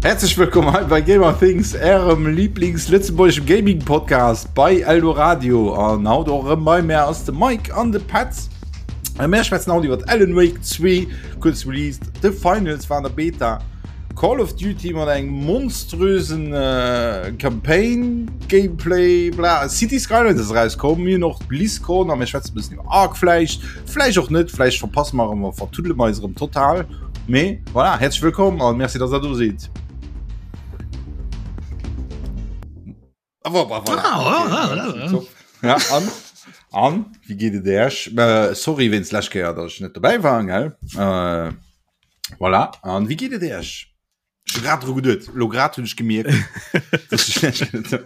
Häerzlech wëllkomm hei bei Gamer Things, ärem Lieblings-lëtzebuergeschem Gaming-Podcast bei Eldoradio. An haut och erëm bei mär ass de Mike an de Petz. A mär schwätzen haut iwwer Alan Wake 2, kuerz released, The Finals war an der Beta, Call of Duty mat engem monströsen äh, Campaign, Gameplay, bla. City Skylines ass erauskomm, mir hunn och BlizzCon a mir schwätzen e bëssen iwwer Ark vläicht, vläicht och net, vläicht verpasse mer erëm a vertuddele mer eis erëm total. Mee voilà, häerzlech wëllkomm an merci, dass der do sidd. Ah, voilà, voilà. Ah, okay, ah, ah, ah. Ja, an, an wie geet et Iech? Äh, sorry wéinst lech Kéier, dass ech net dobäi war, gell? Äh, voilà. An wie geet et Iech? Ech hu grad dru geduet, lo grad hunn ech gemierkt, dass ech lech net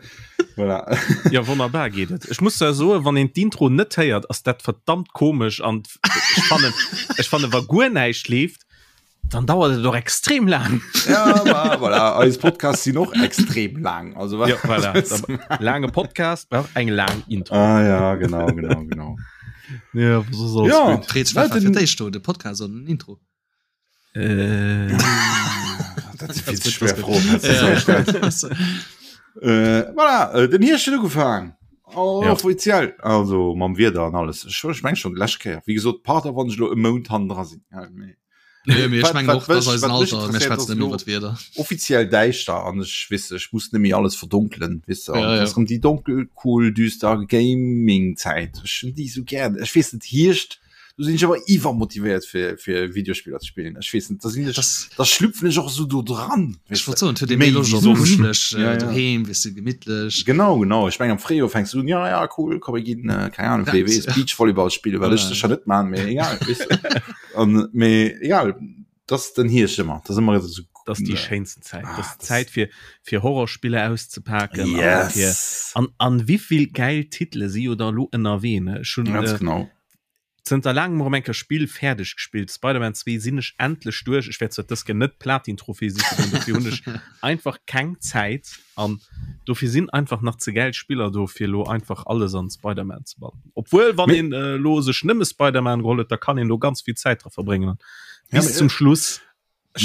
voilà. Ja wonnerbar geet et. Ech muss zwar soen, wann een d'Intro net héiert, ass dat verdammt komesch an ech fannen, ech fannen wa guer näischt leeft, dann dauert et och extrem laang. Ja, ma, voilà. Eis Podcasts sinn och extrem laang. Also, ja, voilà. Laange Podcast brauch eng laang Intro. Ah, ja, genau, genau, genau. Ja, so soll's ja. gut. Fred, wat war fir d'éischt do, de Podcast oder den Intro? Äh. Dat si vill ze schwer Froen. Äh, voilà, äh, den Hierscht huet ugefaangen. Oh, ja. Offiziell. Also mam Wieder an alles. Ech, ech meng schon lech Kéier. Wie gesot, Pardon, wann ech lo e Mount hannen dra sinn. Ja, mee. Nee, mee ech mengen och, dass eisen Alter, mir schwätzen net méi iwwer d'Wieder. Offiziell däischter an ech weess, ech muss net méi alles verdonkelen, weess de. Ja, ja. Ass rëm déi donkel, cool, düster Gaming-Zäit. Ech hunn déi sou gär. Ech weess net, Hierscht, do sinn ech awer iwwermotivéiert fir fir Videospiller ze spillen. Ech weess net, da sinn ech, da schlüpfen ech och esou do dran. Ech wollt soen, et huet ee méi Loscht op kuschelech doheem, weess de, gemittlech. Genau, genau. Ech meng am Fréijoer fänks du un, ja, ja, cool, komm mir ginn, keng Ahnung, wéi weess, Beachvolleyball spillen, wat ech sécher net man, mee egal, weess de. An, mee egal, dat ass den Hierscht ëmmer, dat ass ëmmer esou. Dat ass déi schéinsten Zäit. Dat ass d'Zäit fir fir Horrorspiller auszepaken. Yes. An an wéivill gäil Titele si jo da elo ënnerwee, ne? Ech hunn Ganz genau. Zënter laangem erëm eng Kéier Spill fäerdeg gespillt. Spider-Man 2 sinn ech endlech duerch. Ech wäert zwar dës Kéier net d'Platin-Trophée siche goen, dofir hunn ech einfach keng Zäit an dofir sinn einfach nach ze gäil Spiller do fir elo einfach alles an Spider-Man ze bannen. Obwuel wann een elo sech nëmme Spider-Man geholl huet, da kann een do ganz vill Zäit dra verbréngen an bis zum Schluss.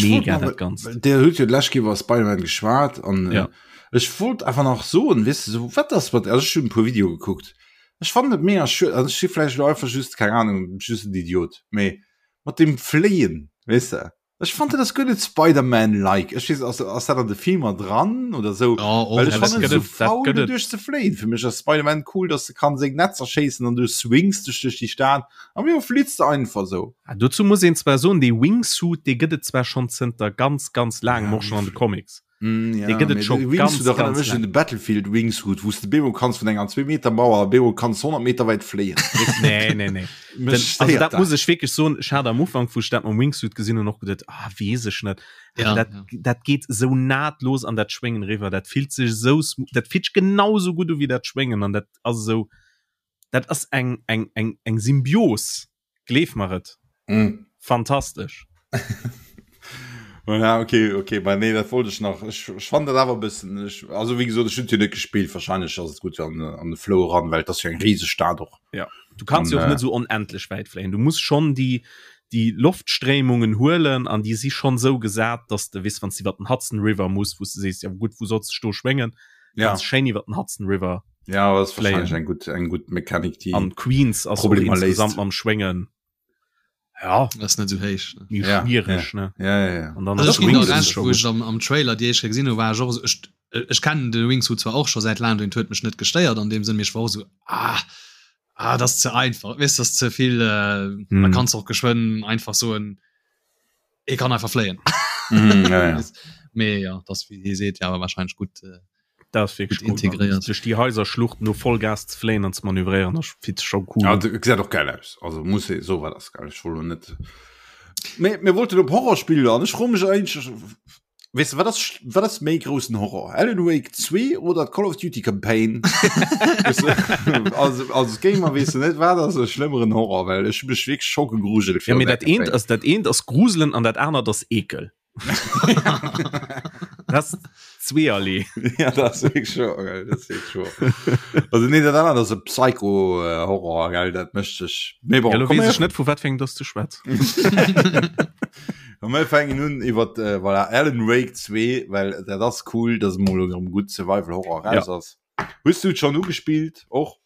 Mega dat Ganzt. Der huet jo d'lescht Kéier iwwer Spider-Man geschwat an ja. ech wollt einfach nach soen, weess de, sou wat ass mat, also ech hunn e puer Videoe gekuckt, ech fannen et mega schued, also ech si vläicht elo einfach just, keng Ahnung, just en Idiot, mee mat deem Fléien, weess de, ech fand dat ass guer net Spider-Man-like. Ech weess, ass, ass dat an de Filmer dran oder sou? Ja, och. Well ech Ja, dat fannen et gëtt sou et, dat faul gëtt et. doduerch ze fléien. Fir mech ass Spider-Man cool, dass de kann seng Netzer schéissen an du swings dech duerch déi Stad an wéi flitts de einfach sou. Ah, dozou muss een zwar soen, dee Wingsuit, dee gëtt et zwar schonn zënter ganz, ganz laangem, och schonn an de Comics. Mm, ja, Dee gëtt et mee scho de ganz, Wingsuit erënnert ganz mech un laang. de Battlefield Wingsuit, wou s de bemol kanns vun enger 2 Meter Mauer bemol kanns 100 Meter wäit fléien. Nee, nee, nee. Mech Den, also stéiert dat dat. muss ech wierklech soen, ech hat am Ufank, wou ech dat mam Wingsuit gesinn hunn, och geduet, ah, weess ech net. Awer Ja, dat, ja. dat geet esou nahtlos an dat Schwéngen eriwwer. Dat fillt sech esou smooth, dat fillt sech genau esou gutt u wéi dat Schwéngen an dat ass esou, dat ass eng, eng, eng, eng Symbios. Gleef mer et. Mm. Fantastesch. Voilà, okay, okay, bei nee, dat wollt ech nach. Ech, ech fand dat awer e bëssen, ech, also wéi gesot, ech hunn et jo net gespillt, wahrscheinlech ass et gutt an, an de Flow eran, well et ass jo eng riseg Stad och. Ja, du kanns An, jo och äh, net sou onendlech wäit fléien. Du muss schonn déi, déi Loftstréimungen huelen an déi si schonn sou gesat, dass de, weess, wann s de iwwer den Hudson River muss, wou s de sees, ja gutt, wou solls de dech do schwéngen, Ja. Kanns schéin iwwer den Hudson River Ja, das ist fléien. wahrscheinlich eng gutt, eng gutt Mechanik, déi An Queens ass och Problemer léist. insgesamt mam Schwéngen, ja, Das ist net sou héich. Ne? méi Ja, schwiereg, ne? Ja, ja, ja. An dann Also ass ech ginn der Wingsuit Recht, scho wou gutt. ech am, am Trailer déi éischt Kéier gesinn hu, war ech och esou, ech, ech kennen de Wingsuit zwar och scho säit laangem, deen huet mech net gestéiert an deem Sënn, mee ech war och esou, ah, ah, dat ass ze einfach, weess, dat ass ze vill, äh, da Mm. kanns de och geschwënn einfach soen, e kann einfach fléien. Mm, ja, ja. Mee ja, dat ass wéi hie seet, ja awer wahrscheinlech gutt, äh, Dat ass wierklech Gut cool, integréiert. Duerch déi Haiserschluchten do Vollgas ze fléien an ze manövréieren, dat fillt sech scho cool Ja, un. dat gesäit och geil aus. Also muss ee soen, dat ass geil. Ech wollt lo net. Mee mir wollten op Horrorspiller an ech froe mech eigentlech, weess de, wat ass, wat ass méi groussen Horror? Alan Wake 2 oder d'Call of Duty Campaign? Weess de, als, als Gamer weess de net, wat ass e schlëmmeren Horror, well ech hu mech wierklech scho gegruselt Ja, virun mee där dat eent Campaign. ass, dat eent ass gruselen an dat anert ass Ekel. Das zweerlee. Ja, dat ass wierklech scho, gell, dat ass wierklech scho. Also nee, dat anert ass e Psycho-Horror, gell, dat mécht sech. Mee bon, Ja, lo komm weess mir ech net, vu wat fir engem dass du schwätz. A mir fänken un iwwer äh, voilà, Alan Wake 2, well dat ass cool, dass mol erëm gutt Survival Horror raus ja. ass. Hues du et schon ugespillt och?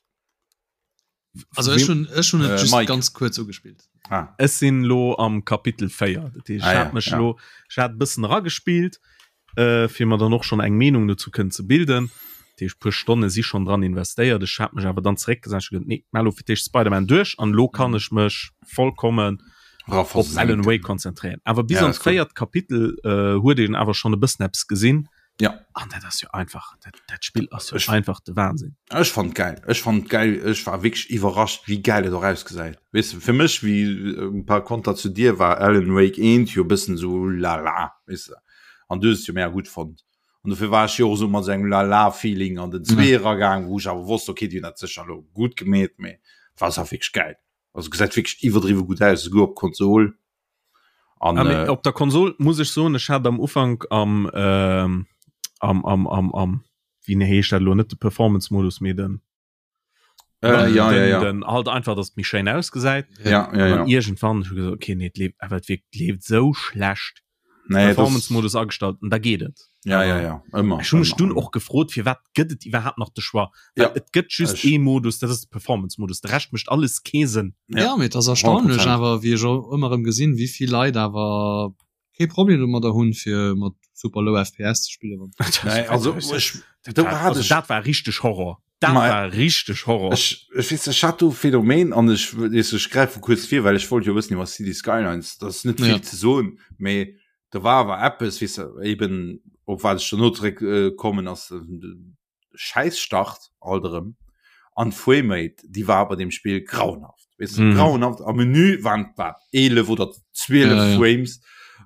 Also ech hun ech hun et äh, just Mike. ganz kurz ugespillt. Ah. Ech sinn lo am Kapitel 4. Dat heescht, ah, ja, mech ja. lo ech hat bëssen ragespillt, äh, fir mer dann och schon eng Meenung dazu kënnen ze bilden. Dat heescht, puer Stonne si schon dran investéiert. Ech hat mech awer dann zeréckgesat ech nee, mal lo fir d'éischt Spider-Man duerch an lo kann mhm. ech mech vollkommen op Alan Wake konzentréieren. Awer bis ja, ans véiert Kapitel äh, huet een awer schon e bëssen eppes gesinn. Ja. An dat ass jo einfach, dat, dat Spill ass jo einfach de Wahnsinn. Ech fand geil. Ech fand geil. Ech war wierklech iwwerrascht, wéi geil et och ausgesäit. Weess de, fir mech, wéi äh, par konter zu dir, war Alan Wake 1 jo e bëssen sou lala, weess de. An du hues et jo mega gutt fonnt. An dofir war ech jo och sou mat sou engem lala-Feeling an den 2 eragaang, wou ech awer wosst, okay, déi hunn dat sécher elo gutt gemeet, mee et war awer wierklech geil. Also gesäit wierklech iwwerdriwwe gutt aus, esouguer op Konsol. An, ah, äh, op der Konsol muss ech soen, ech hat am Ufank am ähm, am am am am wéi heescht dat lo net de Performance-Modus mee den äh, ja, den, ja, ja. den halt einfach dass méi schéin ausgesäit ja, ja, ja. irgendwann gesagt, okay nee, lebt awer et wirkt lebt sou schlecht nee, Performance-Modus agestallt an da geet et. Ja, ja, ja. Ëmmer. Ech hunn mech dunn och gefrot, firwat gëtt et iwwerhaapt nach de Choix? Well ja. et gëtt just ee Modus, dat ass de Performance-Modus. De Rescht mécht alles kee Sënn. Ja, ja mee et ass erstaunlech awer, wéi ech och ëmmer erëm gesinn, wéi vill Leit awer kee Problem domadder hunn, fir mat super low FPS ze spillen. Nee, also, ech, dat, war, also, dat war richteg Horror. Dat war richteg Horror. Ech, ech weess, ech hat do Phänomen an ech, weess, ech gräife kuerz vir, well ech wollt jo wëssen iwwer City Skylines, dat ass net vill ja. ze soen, mee do war awer eppes, weess de, eben op wat ech dono zeréck äh, kommen ass de Schäisstart alt erëm an d'Framerate, déi war bei dem Spill grauenhaft. Weess de, mm. grauenhaft. Am Menü waren wat 11 oder 12 ja, ja. Frames.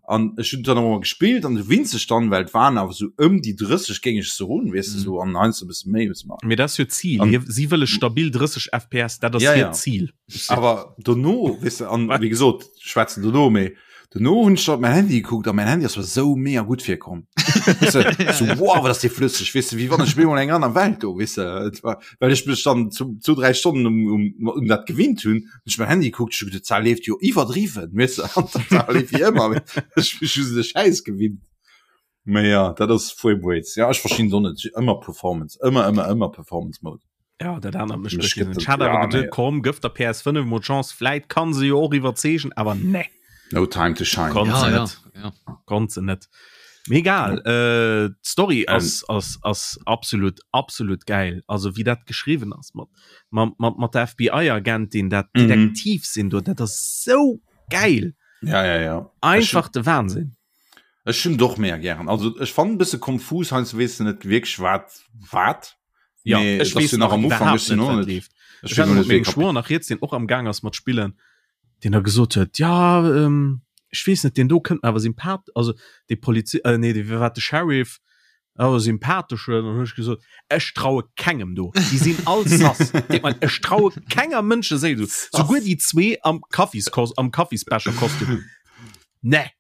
An ech hunn dann nochmal gespillt an du winzeg dann, well et waren awer sou ëm déi 30 géing ech soen, weess de, mm. sou an heiansdo e bësse méi, bësse manner. Mee dat ass jo d'Zil. An, si wëlle stabil 30 FPS, dat ass ja, hiert ja. Zil. Awer dono, weess de, an wéi gesot, schwätzen dono, mee dono hunn ech op mäin Handy gekuckt a mäin Handy ass mer sou mega gutt virkomm. Weess de, sou wow, wat ass dee flësseg, weess de, wéi wann ech op eemol eng aner Welt do, weess de. Et war, well ech mech dann zu, zu 3 Stonnen um, um, um dat gewinnt hunn, hunn ech mäin Handy gekuckt, ech hu geduet, d'Saach leeft jo iwwerdriwwen, weess de, an d'Saach leeft wéi ëmmer, mee ech hu just de Schäiss gewinnt. Mee ja, dat ass Frame Rates. Ja, ech verstinn et och net, ëmmer Performance, ëmmer, ëmmer, ëmmer Performance Mode. Ja, dat anert mécht mech gëtt Ech hat awer ja, geduet, komm, gëff der PS5 mol d'Chance, vläit kann se jo och iwwerzeegen, awer nee. No time to shine. Konnt ja, se ja, net. Ja. Konnt se net. Mee egal, äh, d'Story ass, ähm. ass, ass absolut, absolut geil. Also wéi dat geschriwwen ass mat, mat, mat, mat der FBI-Agentin, dat mhm. Detektiv sinn do, dat ass sou geil. Ja, ja, ja. Einfach de Wahnsinn. Ech hunn doch mega gären. Also ech fannen bësse konfus, heiansdo weess de net wierklech wat wat. Ja, Mee ech et ass weess jo nach nach am Ufank, iwwerhaapt ech sinn net och wat net leeft. ech Ech weess hat och mat net wéi mengem Schwoer nach rieds, deen och am Gaang ass mat spillen, deen da gesot huet, ja ähm, ech weess net, deen do kënnt mir awer sympath also dee Polizi äh, nee, dee wat de Sheriff awer sympathesch huet. An hunn ech gesot, ech traue kengem do, déi sinn all sass. Deet mer leed, ech traue kenger Mënscheséil do, souguer déi zwee am Kaffis am Kaffisbecherkostüm. Nee.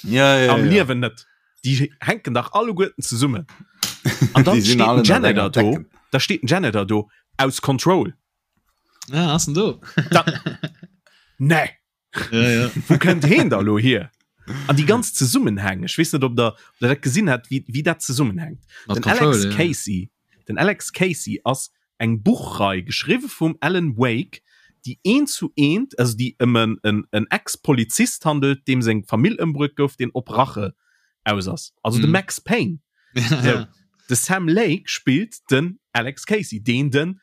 Ja, ja, Am ja. Liewen net. Déi hänken dach alleguerten zesummen. An dann Déi sinn steet alle den ënnert Janitor enger do, Decken. da steet den Janitor do aus Control. Ja, ass en do. Da, nee. Ja, ja. Wou kënnt heen da lo hier? An déi ganz Zesummenhäng, ech weess net, ob der, ob der dat gesinn hat, wéi, wéi dat zesummenhänkt. Mat Den Control, Alex ja. Casey, den Alex Casey ass eng Buchrei, geschriwwe vum Alan Wake, déi eent zu eent, also déi ëm en, en, en Ex-Polizist handelt, deem seng Famill ëmbruet gouf, deen op Rache aus ass. Also de Mhm. Max Payne. Ja, So, ja. de Sam Lake spillt den Alex Casey, deen den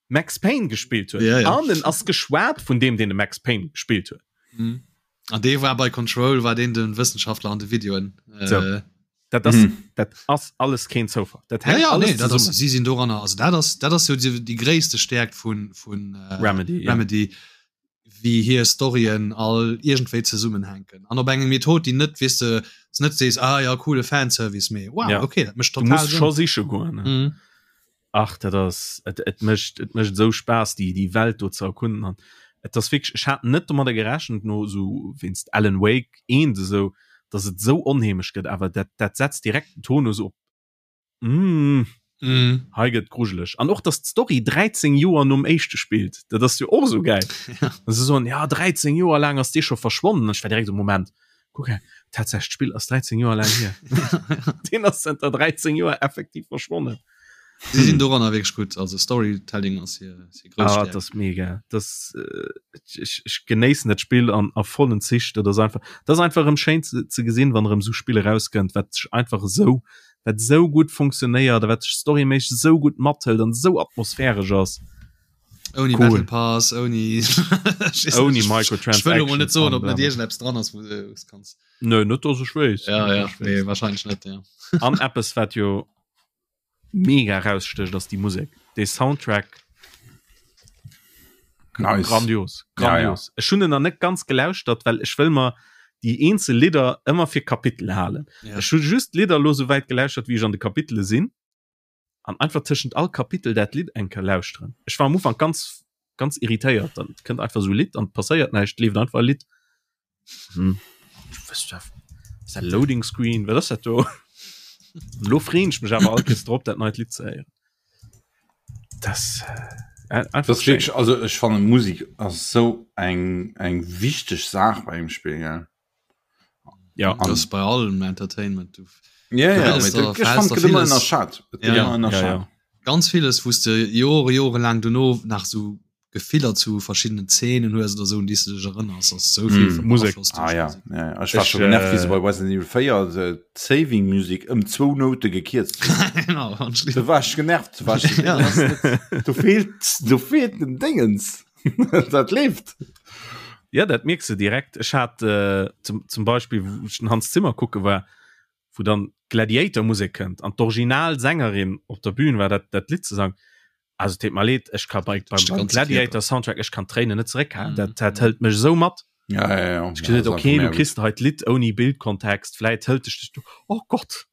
Max Payne gespillt huet. Ja, ja. An en ass geschwat vun deem, deen de Max Payne gespillt huet. Mhm. An dee war bei Control, war deen den Wëssenschaftler an de Videoen. Äh, So. Dat ass, Mhm. dat ass alles keen Zoufall. Dat Ja, hänkt ja, alles nee, dat ass, zesummen. si sinn doranner. Also dat ass, dat ass jo déi, déi gréisste Stäerkt vun, vun äh, Remedy, ja. Remedy, wéi hir Storyen all iergendwéi zesummenhänken. An op eng Method, déi net, weess de, s net sees, ah ja, coole Fanservice, mee wow, Ja. okay, dat mécht Du total muss Sënn. scho siche goen. Ne? Mhm. Ach, dat ass, et, et mécht, et mécht esou Spaass, déi, déi Welt do ze erkunden. An et ass wierklech, ech hat net domadder gerechent, no esou wéinst Alan Wake 1 esou, dass et esou onheemeg gëtt, awer dat, dat setzt direkt den Tonus op, mm, Mm. hei gëtt grujeleg. An och, dass d'Story 13 Joer nom éischte spillt, dat ass jo och esou gäil. Ja. An se soen, ja, 13 Joer laang ass dee scho verschwonnen. An ech war direkt esou, Moment, kuck hei. Tatsächlech, d'Spill ass 13 Joer laang hier. Deen ass zënter 13 Joer effektiv verschwonnen. Si sinn doranner wierklech gutt, also Storytelling ass hir hir grouss Ah, Stärkt. dat ass mega. Das, äh, ech, ech genéissen dat Spill an a vollen Zich. Dat ass einfach, dat ass einfach erëm schéin ze, ze gesinn, wann erëm esou Spill erauskënnt, wat sech einfach esou, wat esou gutt funktionéiert a wat sech storyméisseg esou gutt mathëlt an esou atmosphäresch ass. Ouni Cool. Battle Pass, ouni Ouni Microtransactions Ech wëll elo mol net soen, ob an net iergendeppes dran ass, wou du es kanns. Nö, net dass ech weess. Ja, Net ja, dass ech nee, weess. wahrscheinlech net, ja. An eppes, wat jo mega rausstécht ass déi Musek dee Soundtrack nice. grandios grandios ja, ja. Ech hunn en nach net ganz gelauschtert well ech wëll mer déi eenzel Lidder ëmmer fir Kapitel halen ja. Ech hu just Lidder lo sou wäit gelauschtert wéi ech an de Kapitele sinn an einfach tëschent all Kapitel dat Lidd eng Kéier lauschteren Ech war am Ufank ganz ganz irritéiert dann kënnt einfach sou e Lidd an passéiert näischt leeft einfach e Lidd Hm. Ist dat Loading Screen? Wat ass dat do? Lo freen ech mech awer all Kees drop, dat neit Lidd ze héieren. Das, äh, einfach Das ist schéin. wirklich, also ech fannen Musik ass sou eng eng wichteg Saach bei engem Spill gell. Ja. An- Das bei allem Entertainment. Du Ja, Du ja, wëlls mee da- dat- ech verhältst fand da gëtt ëmmer vieles. ënnerschat. Et gëtt Ja. ëmmer Ja, ënnerschat. ja. ganz vieles, wou s de Jore, jorelaang dono nach sou Gefiller zu verschiddenen Zeenen hues oder sou, un déi s de dech erënners, ass sou vill Mm. mm. Musek. beaflosst Ah duerch ja, Musek. ja, ja. Ech war Ech, scho genervt, wéi se äh, bei Resident Evil 4 de d'Saving Music ëm zwou Noute gekierzt hunn. Genau, ganz schlimm. Da war ech genervt, war ech, Ja. dat ass net, do feelt, do feelt den Dingens. Dat leeft. Ja, dat mierks de direkt. Ech hat äh, zum, zum Beispill, wou ech den Hans Zimmer kucke war, wou dann Gladiator-Musek kënnt an d'Originalsängerin op der Bühn war, dat, dat Lidd ze sangen. Also et deet mer leed, ech ka bei, beim, Dech de beim ganze Gladiator Soundtrack, ech kann d'Tréinen net zeréckhalen. Mhm. Dat, dat hëlt mech esou mat. Ja, ja, ja. Ech gesot, okay, du kriss hei d'Lidd ouni Bildkontext, vläit hëlt dech dech du, oh Gott,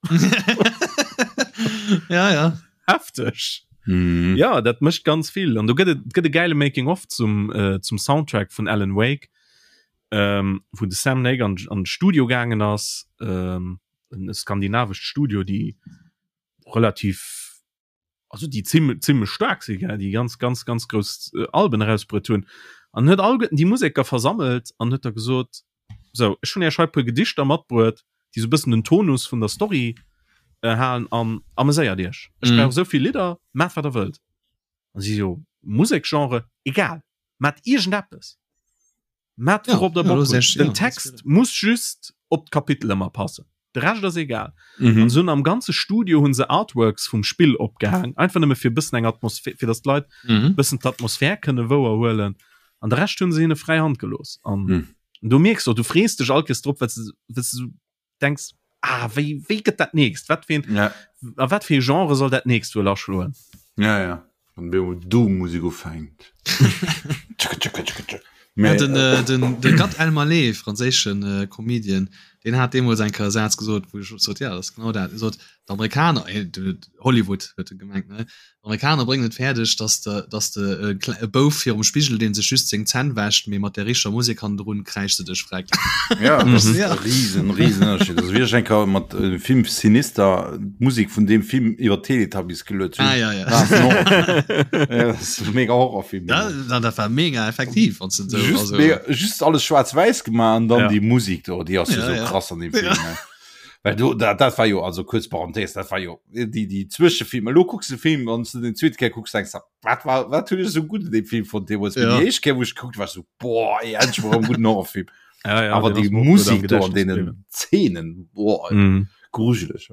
ja, ja. hefteg. Mhm. Ja, dat mécht ganz vill. An do gëtt et gëtt e geile Making of zum, äh, zum Soundtrack vun Alan Wake, ähm, wou de Sam Lake an, an d'Studio gaangen ass, ähm, en skandinavescht Studio, déi relativ also déi zimm zimmlech staark si gell, déi ganz ganz ganz grouss äh, Alben erausbruet hunn an huet alleguerten déi Museker versammelt an huet da gesot sou ech hunn iech hei puer Gedichter matbruet, déi sou bëssen den Tonus vun der Story äh, halen an ameséiert iech. Ech Mhm. brauch esou vill Lidder, maacht wat der wëllt. An si jo Musekgenre, egal, maacht iergendeppes. Maacht Ja, wourop der ja, Bock das hutt. ist echt- Den ja, das Text ist muss just op d'Kapitel ëmmer passen. De Rescht ass egal. Mhm. An se hunn am ganze Studio hunn se Artworks vum Spill opgehaang, einfach nëmme fir bëssen eng Atmosphär, fir datt d'Leit Mhm. bëssen d'Atmosphär kënne wouerhuelen. An de Rescht hunn se hinne fräi Hand gelooss. An Mhm. du mierks och, du frees dech all Kees drop, well s de well s de sou denks, ah wéi wéi gëtt dat nächst? Wat fir een Ja, a wat fir ee Genre soll dat nächst wuel aschloen? ja, ja. Wann do Doom-Musik ufänkt. Tschakka, tschakka, tschakka, tschakka. Ja, Mä, den, äh, den, de Gad Elmaleh, franséischen äh, Comedian, deen hat deemools eng Kéier e Saz gesot, wou ech sot, ja, dat ass genau dat. E sot, d'Amerikaner, äh, de- Hollywood huet e gemengt, ne? D'Amerikaner bréngen et fäerdeg, dass de, dass de e klei e Bouf virum Spigel, dee sech just seng Zänn wäscht, mee mat der richteger Musek hannendrun kräischt de dech freck. Ja, dat ass Mhm. e Ja. riesen, riesen Ënnerscheed. Also wéi ech eng Kéier mat dem Film Sinister d'Musek vun deem Film iwwer d'Teletubbies geluet hunn. Ah, ja, ja. War es en Horrorfilm. Ja, dat ass e mega Horrorfilm. Ja, dat, dat war mega effektiv, wann s de esou, Just, also. mega, just alles schwaarz-wäiss gemaach an dann Ja. déi Musek do, déi ass jo Ja, sou ja. krass an deem Film. Ja. Ne? Well do, dat, dat war jo, also kuerz Parenthèse, dat war jo déi, déi Zwëschefilmer. Elo kucks de Film, wann s du den zweete Kéier kucks, denks de, wat war, wat hunn ech esou gutt un deem Film fonnt deemools? Mee Ja. déi éischt Kéier, wou ech gekuckt, war ech esou, boah, ey, endlech mol erëm e gudden Horrorfilm. Ja, ja, Awer deen déi ass mir och gutt am Musek do an Gedächtnis deenen bliwwen. Zeenen, boah, ey, Mhm. grujeleg.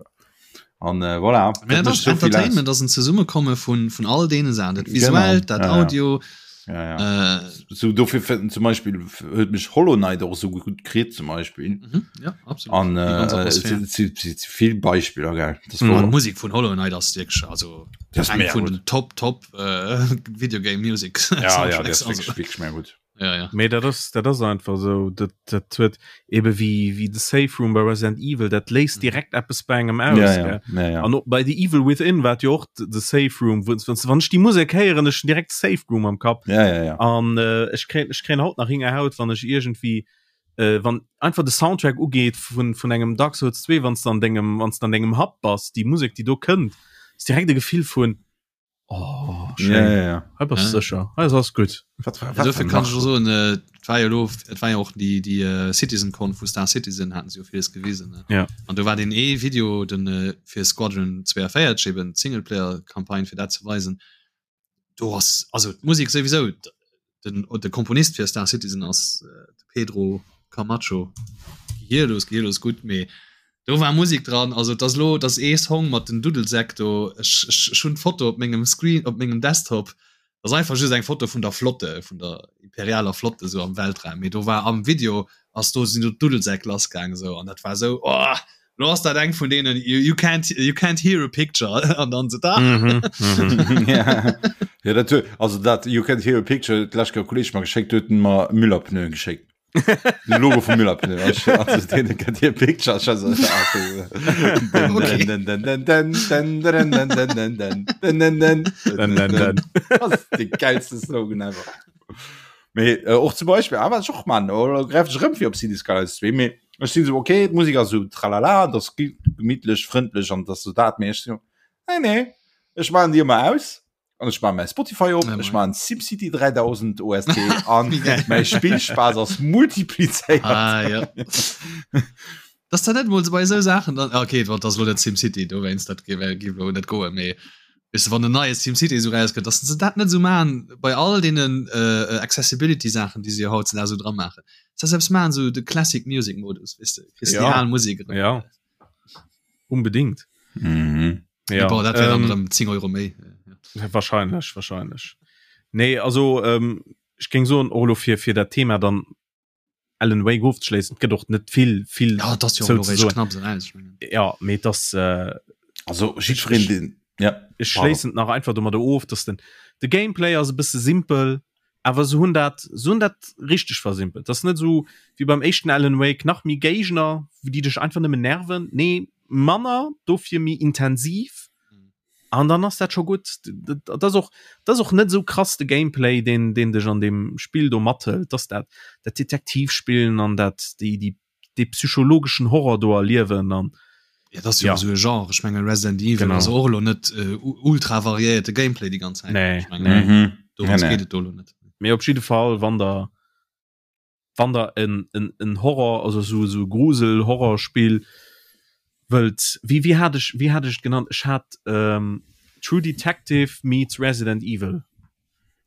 An äh, voilà, Mä dat dat mécht ass sou vill aus. Entertainment ass en Zesummekomme vun, vun all deene Saachen, dat Genau, Visuellt, dat ja, ja. Audio, Ja, ja. äh, So dofir fënnt zum Beispiel huet mech Hollow Knight och sou gutt kritt zum Beispiel. mhm, ja, absolut. An Déi ganz äh, Atmosphär. et si- si- si vill Beispiller gell. Das Mhm. war An d'Musek vun Hollow Knight ass wierklech also das eng mega vun gut. den Top Top äh, Videogame Music Ja, ja, Soundtracks, das wirklich, also. wirklich mega gut. Ja, ja. Mee dat ass dat ass einfach sou dat dat huet ebe wéi wéi de Safe Room bei Resident Evil dat léist Mhm. direkt eppes bei engem aus Ja, ja, gell? ja, ja. An och bei The Evil Within war jo och de Safe Room wou wann wann ech déi Musek héieren ech hunn direkt Safe Room am Kapp Ja, ja, ja. an äh, ech kréien ech kréien haut nach Hingerhaut wann ech iergendwéi äh, wann einfach de Soundtrack ugeet vun vun engem Dark Souls 2 wann s de an dengem wann s de an dengem Hub bass déi Musek déi do kënnt ass direkt e Gefill vun oh. Ja, ja, ja. Hei bass du sécher. Hei ass alles gutt. Wat war, wat Dofir kann ech soen, äh, et war jo lo, et war jo och déi, déi äh, CitizenCon vu Star Citizen haten se jo villes gewisen. Ne? Ja. An do war deen ee Video den äh, fir Squadron 42 eben d'Singleplayer-Campagne fir dat ze weisen. Do ass also d'Musek souwisou den, de Komponist fir Star Citizen ass äh, de Pedro Camacho. Gehirlos, gehirlos gutt, mee do war Musik dran, also et ass lo, et ass ee Song mat den Duddelsäck do, ech, ech, ech hunn d'Foto op mengem Screen, op mengem Desktop, ass einfach just eng Foto vun der Flotte, vun der imperialer Flotte sou am Weltraum, mee do war am Video ass do sinn do d'Duddelsäck lassgaang sou an dat war sou oh, lo ass dat eng vun deenen you, you can't you can't hear a picture an dann se da. Mhm, mhm. ja. ja, dat, also dat you can't hear a picture, d'lescht Kéier e Kolleg mer geschéckt, huet en mer Müller-Pneuen geschéckt. Den Logo vum Müller-Pneu. Also, den kennt hier Picture. De geilste Slogan ever. Mee äh, och zum Beispiel awer och man oder gräif ech rëm fir op City Skylines 2 mee ech sinn so okay d'Musik ass so tralala das gemütlech frëndlech an das so dat mee ech so nee nee ech machen die immer aus An ech maache mäi Spotify op, ech maachen SimCity 3000 OST an mäi Spillspaass ass multiplizéiert. Ah, ja. Dass dat net mol bei esou Saachen dann, okay, wat ass lo net SimCity, dowéinst dat géif géif lo net goen, mee weess de wann en neie SimCity esou rauskënnt, dass se dat net esou maachen bei all deenen Accessibility-Saachen, déi se jo hautzedags esou dra maachen, dass se eppes maachen, esou de Classic Music Modus, weess de, kriss de déi al Musek erëm. Ja. Unbedingt. Mhm. Ja, Boah, dat wär dann ähm, erëm 10 Euro méi. Ja, wahrscheinlech, wahrscheinlech. Nee, also ähm, ech géing soen, och elo fir, fir dat Thema dann Alan Wake ofzeschléissen, et gëtt och net vill, vill Ja, dat ass jo zou och ze elo soen. réischt knapps eraus, ech mengen. Ja, mee et ass, äh, Also jiddwereen, deen, ja, ech pardon. schléissen et nach einfach domadder of, dass den, de Gameplay ass e bësse simpel, awer se hunn dat, se hunn dat richteg versimpelt. Dat ass net esou wéi beim éischten Alan Wake, nach méi Géigner, déi dech einfach nëmmen nerven. Nee, manner, dofir méi intensiv. An dann ass dat scho gutt. Dat ass och, dat ass och net esou krass de Gameplay, deen, deen dech an deem Spill do mathëlt. Dat ass dat, dat Detektivspillen an dat, déi, déi dee psychologeschen Horror do erliewen an Ja, das ist ja, ja. so e Genre. Ich meine Resident Evil Genau. ass och lo net äh, ultra variéierte Gameplay die ganz Zeit. Nee, Ich meine, nee. Mhm. dorums Nee, nee. geht et do lo net. Mee op jidde Fall wann der wann der en, en, en Horror also so so Grusel Horrorspill wëllt wéi wéi hat ech wéi hat ech et genannt ech hat ähm, True Detective meets Resident Evil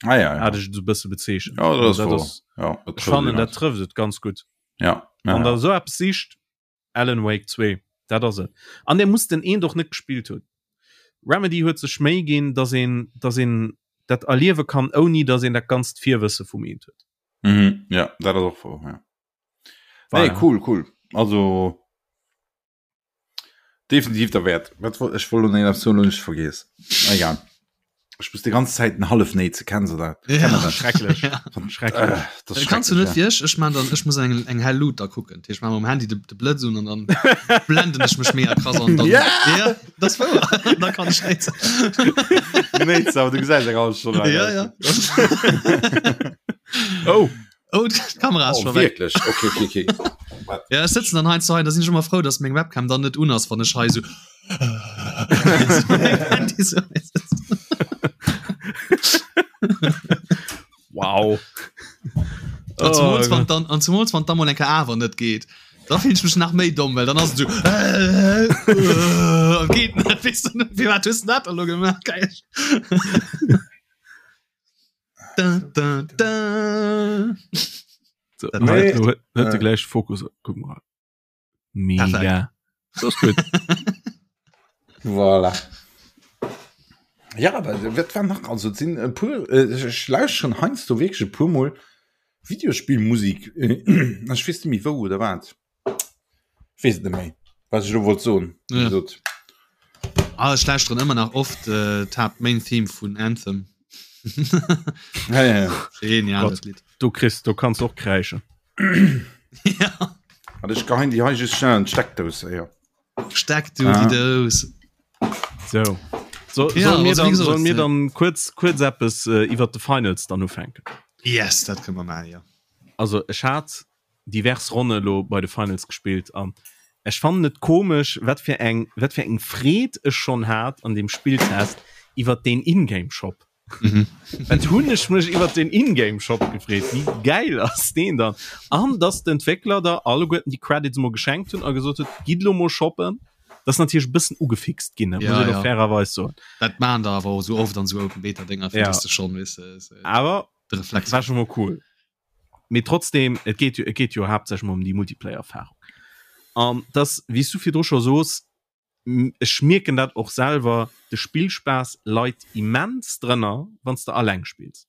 Ah, ja, ja. hat ech et so bësse bezeechent. Ja, dat ass dat woer. ass Ja, dat ech trëfft fannen et dat ganz. trëfft et ganz gutt. Ja, ja, Wann der ja. esou eppes sicht, Alan Wake 2, dat ass et. An der muss den eent och net gespillt hunn. Remedy huet sech Méi ginn, dass een, dass een dat erliewe kann, ouni dass een dat ganzt Virwësse vum eent huet. Mhm, ja, dat ass och wouer, ja. Nee, Voilà. cool, cool. Also definitiv derwäert. Wat wollt ech wollt lo nach eppes soen, hunn ech vergiess. Egal. Ech muss die ganze Zeit en hallef néi ze kennen se dat. Ja. Schrecklech. Ja. Schrecklech. Äh, das ist Kannst du net schrecklech, wie ech ech man dann ech muss eng eng hell Lut da kucken ich man um Handy de, de Blëtz un an dann blenden ech mech mega krass an dann Ja! ja das wouer da kann ich net ja. Nee, aber du gesäis eng halbe Stonn lang ja aus. ja Oh, oh d'Kamera ass Oh, schon weg wirklich? Okay, okay, okay. ja ech sitzen dann heinz hei da sinn ech immer frou dass meng Webcam dann net un ass wann ech hei so Handy so wow. An zumools, Oh, wann dann, an zumools, wann dann mal eng Kéier awer net geet. Da fillen ech mech nach méi domm, well dann ass et so äh, äh, geet net, weess du net, firwat hues du dat elo gemaach? Geil. Da, da, da. So, Dat nee, war- huet de äh. gläich Fokus. Guck mal. Mega. So ist gut. Voilà. Ja, aber wat war nach also et sinn e puer äh, ech ech lauschteren heiansdo wierklech e puer mol Videospillmusik äh, ech weess net méi wou oder wat. Ech weess et net méi, wat ech elo wollt soen. Wéi Ja. gesot. Ah, ech lauschteren ëmmer nach oft äh, d'Haupt Main Theme vun Anthem. Ja, ja, ja. Genial, Gott. dat Lied. Du kriss, du kannst och kräischen. Ja. Warte, ech geheien déi hei just schnell an d'Steckdous, ja. Steck du Ah. die Dous. So. So, Ja, sollen mir also wie dann, gesagt, sollen mir äh, dann kurz, kurz eppes äh, iwwer de Finals dann ufänken? Yes, dat kënne mer maachen, ja. Also ech hat divers Ronne lo bei de Finals gespillt an ech fannen et komesch wat fir eng wat fir eng Freed ech schonn hat an dem Spilltest iwwer den Ingame Shop. Mhm. Wat hunn ech mech iwwer den Ingame Shop gefreet, wéi gäil ass deen dann? An dass d'Entwéckler der alleguerten déi Credits mol geschenkt hunn a gesot huet, gitt lo mol shoppen. Dat ass natierlech e bëssen ugefixt ginn, ja, muss ech ja. fairerweis soen. Dat maan der awer och sou oft an sou Open Beta Dinger, ja. du schon, weißt du, äh, awer de Reflex war schon mal cool. Mee trotzdem, et geet jo, et geet jo haaptsächlech mol ëm déi Multiplayer-Erfahrung. An das, wéi s du virdru scho soos, ech mierken dat och selwer, de Spillspaass leit immens drënner, wann s de alleng spills.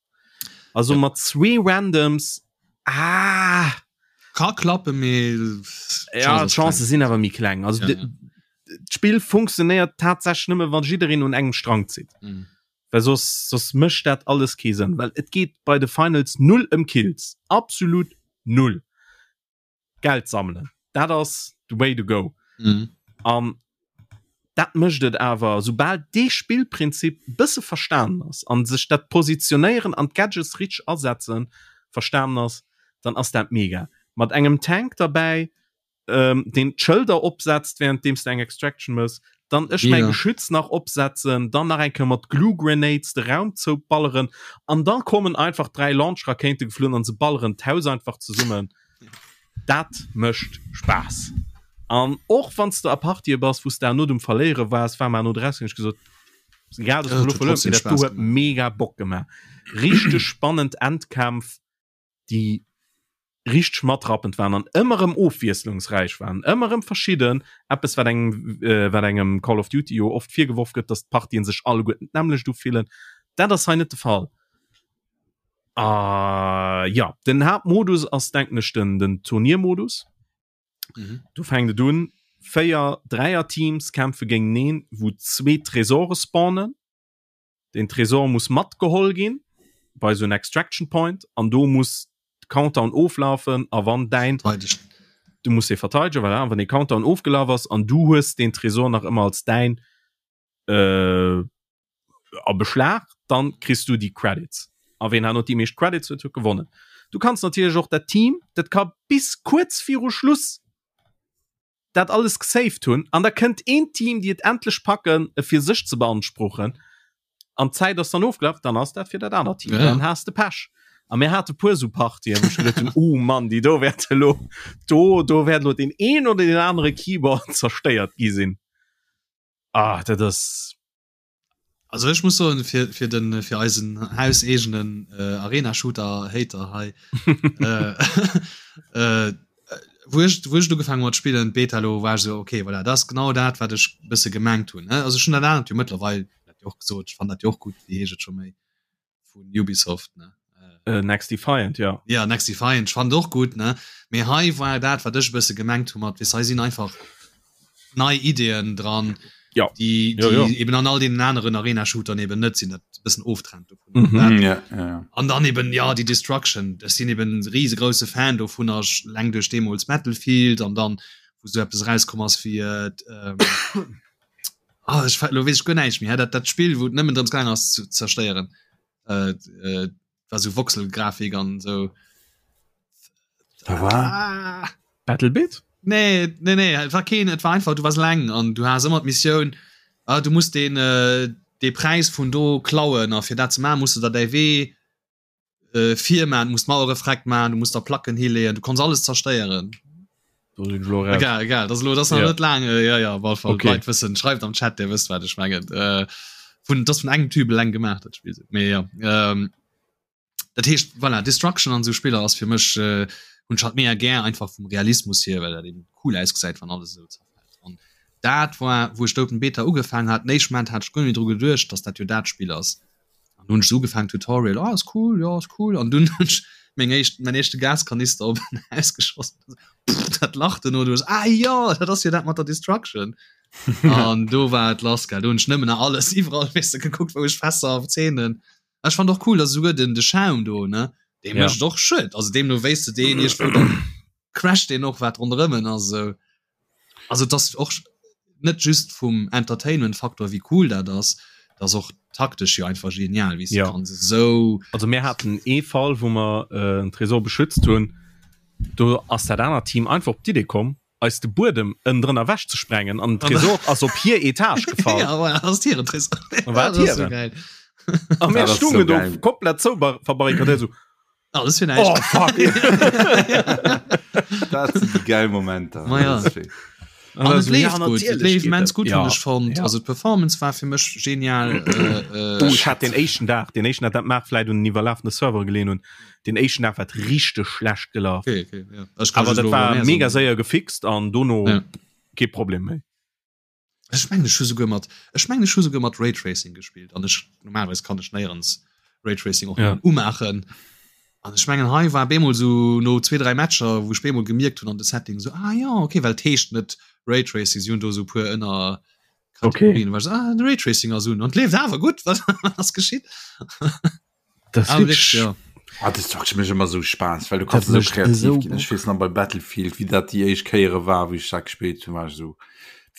Also ja. mat zwee Randoms, ah! Ka klappe mee ja, d'Chancë sinn awer méi kleng. Also ja, ja. d'Spill funktionéiert tatsächlech nëmme wann jiddereen un engem Strang zitt. Mhm. Well soss, soss mécht dat alles kee Sënn, well et geet bei de Finals null ëm Kills. Absolut null. Geld sammelen, dat ass the way to go. Mhm. An dat mécht et awer, soubal dee Spillprinzip bësse verstanen ass an sech dat Positionéieren an d'Gadgets richteg asetzen verstanen ass, dann ass dat mega. Mat engem Tank derbäi, ähm, deen d'Schëlder opsetzt, währenddeems de eng Extraction mëss, dann ech mäi Geschütz nach opsetzen, dann nach eng Kéier mat Glue Grenades de Raum zouballeren an dann kommen einfach 3 Launch Rakéite geflunn an se balleren d'Haus einfach zesummen. Dat mécht Spaass. An och wann s de a Partië bass, wou s de herno um Verléiere waars, war mer herno draus, hunn ech gesot, egal dass mer elo verluer hunn, mee dat do huet mega Bock gemaach. Richteg spannend Endkämpf. déi richteg matrappend waren an ëmmer erëm ofwiesslungsräich waren, ëmmer erëm verschidden, eppes wat engem äh, wat engem Call of Duty jo oft virgeworf gëtt, dass d'Partien sech alleguerten d'nämmlecht ufillen. Dat ass hei net de Fall. Ah, ja, den Haaptmodus ass denken ech den, den Turniermodus. Mhm. Du fänkt et un, 4 Dräier-Teams kämpfe géinteneen, wou zwee Tresore spawnen. Den Tresor muss matgeholl ginn bei sou en Extraction Point an do muss de Countdown oflafen a wann däin du muss e verteidegen voilà, an wann dee Countdown ofgelaf ass an du hues den Tresor nach ëmmer als däin äh, a Beschlag, dann kriss du déi Credits. A ween herno déi meescht Credits huet, huet gewonnen. Du kanns natierlech och dat Team, dat ka bis kuerz viru Schluss dat alles gesaved hunn an da kënnt een Team déi et endlech packen e fir sech ze beanspruchen an d'Zäit ass dann ofgelaf, dann ass dat fir dat anert Team, ja. dann has de Pech. A mir hate puer sou Partien, wou ech geduet hunn, oh Mann, déi do wäerte lo do do wäert lo deen een oder deen anere Keyboard zerstéiert gi sinn. Ah, dat ass. Also ech muss soen fir fir den fir eisen hauseegenen äh, Arena Shooter Hater hei äh, äh, wou ech wou ech ugefaangen mat spillen Beta lo war ech so okay voilà dat ass genau dat wat ech bësse gemengt hunn ne also schon dat anert jo mëttlerweil dat jo och gesot ech fand dat jo och gutt wéi heescht et scho méi vun Ubisoft ne äh, Next Defiant ja ja Next Defiant fand och gut ne mee hei war dat wat ech bësse gemengt hu mat wis hei sinn einfach nei Ideen dran ja die, die ja, ja. eben an all den aneren Arena Shootern eben net sinn dat bëssen oftrennt mhm. dat, ja, ja, ja. an dann eben ja die Destruction das sinn eben riesengroße Fan dovun leng duerch deemols Battlefield an dann wou so etwas rauskomm ass wie äh, ähm, Ah, ech lo weess ech guer näischt méi. Dat, dat Spill, wou et nëmmen drëms gaang ass zu zerstéieren. Äh, äh, war sou Voxelgrafik an sou. Da war ah. Battlebit? Nee, nee, nee, et war keen, et war einfach, du wars leng an du has ëmmer d'Missioun, ah, du musst den, äh, dee Präis vun do klauen a fir dat ze maachen, muss du der däi Wee äh, vir man, muss Mauere freck man, du musst da Placken hileeën, du konns alles zerstéieren. Egal, egal, das lo das ja. net lang äh, ja, ja, Fall, okay. Leit wëssen schreift am Chat der wësst wat ech mengen äh, vun das vun engem Typ leng gemacht dat Spiel mee ja ähm, dat heescht voilà, Destruction an so Spiller ass fir mech äh, hun hat mé gär einfach vum Realismus hier well dat eben cool ausgesäit wann alles so zerfällt an dat war wou ech d'Open Beta ugefaangen hat den éischten Moment hat ech guer net dru geduecht dass dat jo dat Spill ass An hunn ech sou ugefaangen, Tutorial, oh ass cool, jo ass cool. An dunn hunn ech meng éischt, mäin éischte Gaskanister op en Haus geschoss. Pff, dat Lach duerno, du hues, ah jo, dat ass jo dat mat der Destruction. An do war et lass, gell. Do hunn ech nëmmen nach alles iwwerall, weess de, gekuckt, wou ech Fässer a Zeenen. Ech fand och cool, dass esouguer den, de Schaum do, ne, dee Ja. mécht och Schued. Also deemno wéis de deen iergendwou, dann crasht deen och, wat ronderëm en ass, esou. Also dass och net just vum Entertainment Faktor wéi cool dat ass, dat ass och taktesch jo einfach genial wéi ja. kann sou. Also mir haten ee Fall wou mer äh, en Tresor beschützt hunn, do ass dat anert Team einfach op d'Idee komm eis de Buedem ënnendrënner ewech ze sprengen an den Tresor ass op hir Etage gefall. Ja, voilà, ass hiren Tresor. War Ja, dat ass hiren. so geil. A mir stungen do komplett zou verbarrikadéiert so. Alles fir näischt. Oh, fuck. Dat sinn déi geil Momenter. Ma ja. An et leeft gutt, et leeft immens gutt, hunn ech fonnt. Also d'Performance war fir mech genial. Oh, ech hat den éischten Dag, den éischten Dag, dat mag vläit un den iwwerlafene Servere geleeën hunn, den éischten Dag war et richteg schlecht gelaf. Okay, okay, ja. Ech kann Awer just dat elo war mehr mega soen. séier gefixt an dono Ja. kee Problem méi. Ech mengen ech hu souguer mat ech mengen ech hu souguer mat Raytracing gespillt an ech normalerweis kann ech néierens Raytracing och Ja. nëmmen umaachen. An ech mengen hei war bemol sou no zwee 3 Matcher wou ech bemol gemierkt hunn an de Setting sou ah ja okay well et heescht net Raytracing si hunn do sou puer ënner Okay. Kategorien war ech sou ah de Raytracing ass un an et leeft awer gutt wat ass geschitt? Das Ah, wirklich, wirklich, ja. Ah, das macht mech immer so Spaß, weil du kannst Dat so mécht kreativ esou ginn. Ech Bock. weess nach bei Battlefield, wie dat déi éischt Kéiere war, wéi ech dat gespillt hunn, war ech so,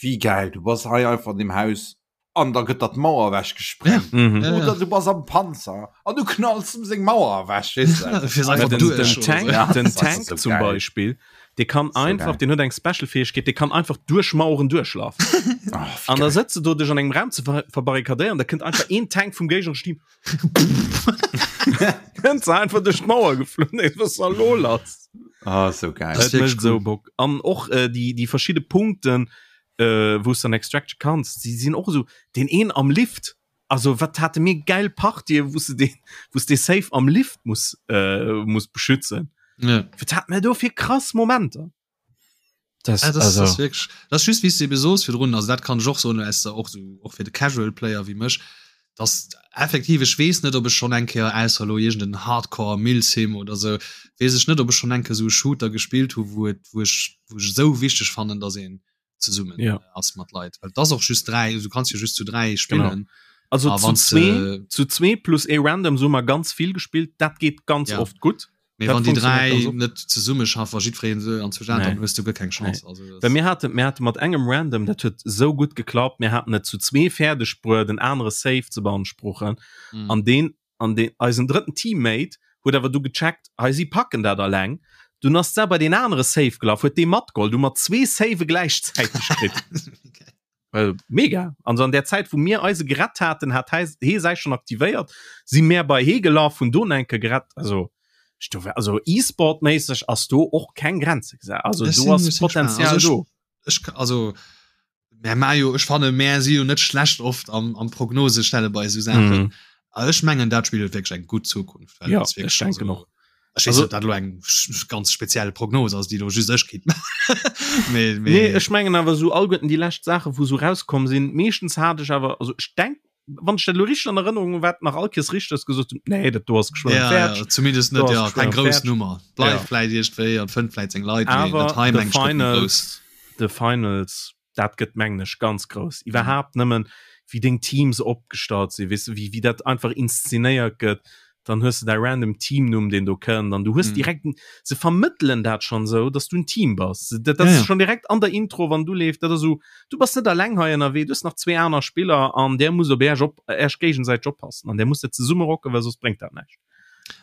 wie geil, du bass hei einfach an dem Haus an da gëtt dat d'Mauer ewech gesprengt. Mhm. Ja, ja. Oder du bass am Panzer an du knalls em seng Mauer ewech, weess du? Fir Mä einfach den, duerch den oder Tank, so. Ja, den das ist Tank so zum geil. Beispiel, dee kann So einfach, geil. den huet eng Special Fähigkeet, dee kann einfach duerch Maueren duerchlafen. Oh, wie An da geil. sëtzt du do dech an engem Raum ze ver verbarrikadéieren, da kënnt einfach een Tank vum géignereschen Team Kënnt se einfach duerch d'Mauer geflunn, ey, was war lo lass? Ah, so geil. Das Dat mécht wirklich sou cool. Bock. An och äh, déi, déi verschidde Punkten, äh, wou s dann Extraction kanns, déi sinn och esou, deen een am Lift, also wat hate mir geil Partien, wou s de deen, wou s de safe am Lift muss, äh, muss beschützen. Ja. Wat hat mir do fir krass Momenter? Das, ja, das, also. das wirklich, das just wie du soos virdrun also dat kann ech och soen aus der och so och fir de Casual Player wie mech dass effektiv ech weess net ob ech schon eng Kéier ausser lo iergend en Hardcore Milsim oder sou weess ech net ob ech schon eng Kéier sou e Shooter gespillt hu wou et wou ech wou ech esou wichteg fannen dass een zesummen ja. ass mat Leit well das och just 3 du kannst jo just zu 3 spillen genau. Also Ah, zu wann's zwee, de zu zwee plus ee random so mal ganz vill gespielt dat geht ganz ja. oft gut Mee Dat wann déi funktioniert ganz 3 oft. net zesummeschaffen a jiddwereen esou an zwou Nee. dann hues du guer keng Nee. Chance. Also Well das mir haten, mir hate mat engem Random, dat huet sou gutt geklappt, mir haten et zu zwee fäerdeg bruet, en anere Safe ze beanspruchen. mm. An deen, an deen, eisen drëtten Teammate huet awer du gecheckt, hei si packen dat alleng. Dunn ass da bei deen anere Safe gelaf, huet dee matgeholl, du mat zwee Save gläichzäiteg kritt. Okay. Äh, mega. Also an der Zäit, wou mir eise gerett haten, hat hei, hee säi schon aktivéiert, si mär bei hee gelaf, hunn do enke gerett. Also, ech do, also E-Sport-méisseg ass do och keng Grenze gesat. Also Ech do sinn, ass ech sinn gespannt. Potenzial Also do. ech, ech, also mär ma jo, ech fanne mär si jo net schlecht oft am, am Prognose stelle bei esou Saachen. Mhm. A ech mengen dat Spill huet wierklech eng gutt Zukunft, well Ja, et ass ech wierklech denken also och. Ech weess Also, net, ob dat elo eng ganz speziell Prognos ass, déi elo just ech kinnt maachen. Mee, nee, mee ech mengen awer esou alleguerten déi lescht Saachen, wou esou rauskomm sinn, meeschtens hat ech awer, also ech denk, wann ech dat elo richteg an Erënnerung hunn, wat nach all Kees richteg ass, gesot hunn, nee, dat do ass geschwënn ja, fäerdeg, ja, zumindest do net, ass ja, geschwënn keng grouss fäerdeg. Nummer. Ja. Bleift vläit iergendwéi an fënnt vläit seng Leit, mee dat Awer hei The meng ech gëtt méi grouss. Finals, The Finals, dat gëtt mengen ech ganz grouss. Iwwerhaapt nëmmen wéi deng Teams opgestallt sinn, weess de, wéi wéi dat einfach inszenéiert gëtt, dann hues de däi random Teamnumm deen do kënnt an du hues Mhm. direkt se vermëttelen dat schonn esou, dass du en Team bass. Dat Ja, ass ja. schonn direkt an der Intro wann du leeft, dat ass esou, du bass net alleng hei ënnerwee, du hues nach zwee aner Spiller an där musst op äerch op äerch géigesäiteg oppassen an där musst der zesumme rocken, well soss bréngt dat näischt.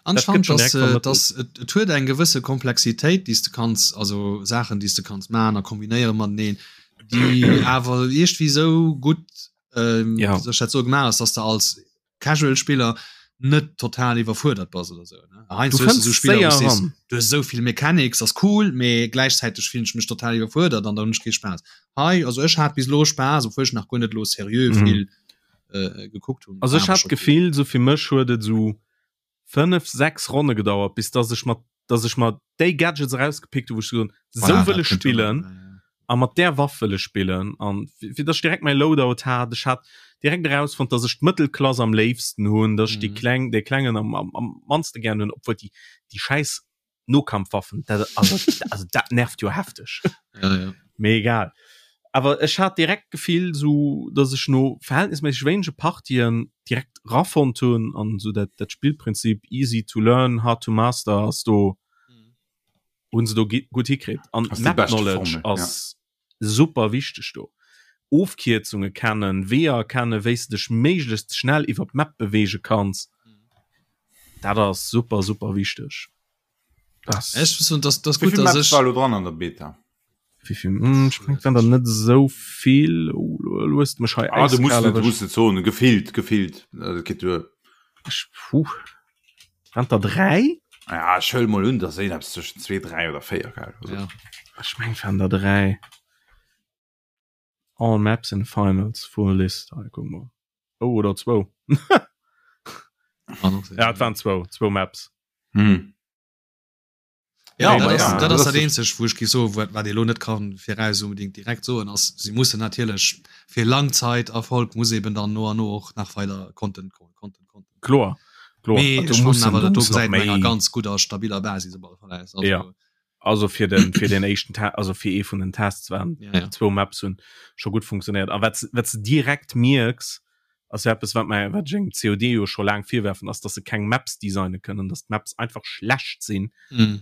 An ech Dat gëtt fand, schonn dass, direkt äh, vermëttelt. dass et, et huet eng gewësse Komplexitéit, déi s de kanns, also Saachen, déi s de kanns maachen a kombinéiere mateneen, déi awer iergendwéi esou gutt, ähm, Ja. wéi soll ech dat soen, gemaach ass, dass de als Casual-Spiller net total iwwerfuerdert bass oder sou. Ne? Du Heiansdo hues du fënns sou Spiller, wou séier s sees, eran. du hues esou vill Mechanics, ass cool, mee gläichzäiteg fillen ech mech total iwwerfuerdert an da hunn ech kee Spaass. Hei, also ech hat bis elo Spaass, obwuel ech nach guer net elo seriö Mhm. vill äh, gekuckt hunn. Also War ech awer hat scho cool. d'Gefill, sou fir mech huet et sou 5, 6 Ronne gedauert, bis dass ech mat dass ech mer déi Gadgets erausgepickt hu wou ech gesot hunn, sou Voilà, wëll dat ech kënnt jo nach spillen dobäi, ja. a mat där Waff wëll ech spillen an fir dass ech direkt mäi Loadout hat. Ech hat direkt erausfonnt, dass ech d'Mëttelklass am léifsten hunn, dass ech déi Mhm. kleng dee klengen am am am mannste gären hunn, obwuel déi déi schäiss Nokampfwaffen, dat also also dat nervt jo hefteg. Ja, ja. Mee egal. Awer ech hat direkt d'Gefill sou, dass ech no verhältnisméisseg wéinege Partien direkt rafonnt hunn an sou dat dat Spillprinzip easy to learn, hard to master ass do hunn se do gutt hikritt. An Ass déi Map bescht Knowledge Formel, ja. ass super wichteg do. Ofkierzunge kennen, Weeër kennen, wéi s de dech méiglechst schnell iwwer d'Map beweege kanns, dat ass super super wichteg. Das Ech muss soen, dass dass Wéi gutt, vill dass Maps ech war elo dran an der Beta? Wéi vill? Hm, ech mengen, et waren der net esou vill. Oh, lo hues de mech hei Ah, du musst äiskal net, du erwëscht. musst net soen, gefillt, gefillt, dat geet duer. Ech, puh. Waren der 3? Ja, ech huele mol un, dass een eppes zwëschen 2, 3 oder 4 gell? Also. Ja. Ech meng waren der 3. All maps in finals full list. Ah, guck mal. Oh, oder 2. Ja, et waren zwou, zwou Maps. Hm. Ja, Nee, dat ma ass, ja, dat dat ass ass dat de- eenzegt, wou ech géif soen, wat, wat ee lo net kann viraus unbedingt direkt soen, ass, si mussen natierlech fir Langzeiterfolg muss eben dann no an no och nach weider Content kommen, Content, Content. Kloer, kloer. Mee Also ech fannen mussen, awer, do dat do muss nach gesäit no enger méi. ganz gudder, stabiler Basis op alle Fall aus. Also, Ja. Also fir den, fir den éischten Te also fir ee vun den Tests waren Ja, ja. zwou Maps hunn scho gutt funktionéiert. A wat s, wat s de direkt mierks, ass jo eppes, wat mer, wat ech engem COD jo scho laang virwerfen, ass, dass se keng Maps designe kënnen, dass d'Maps einfach schlecht sinn. Mhm.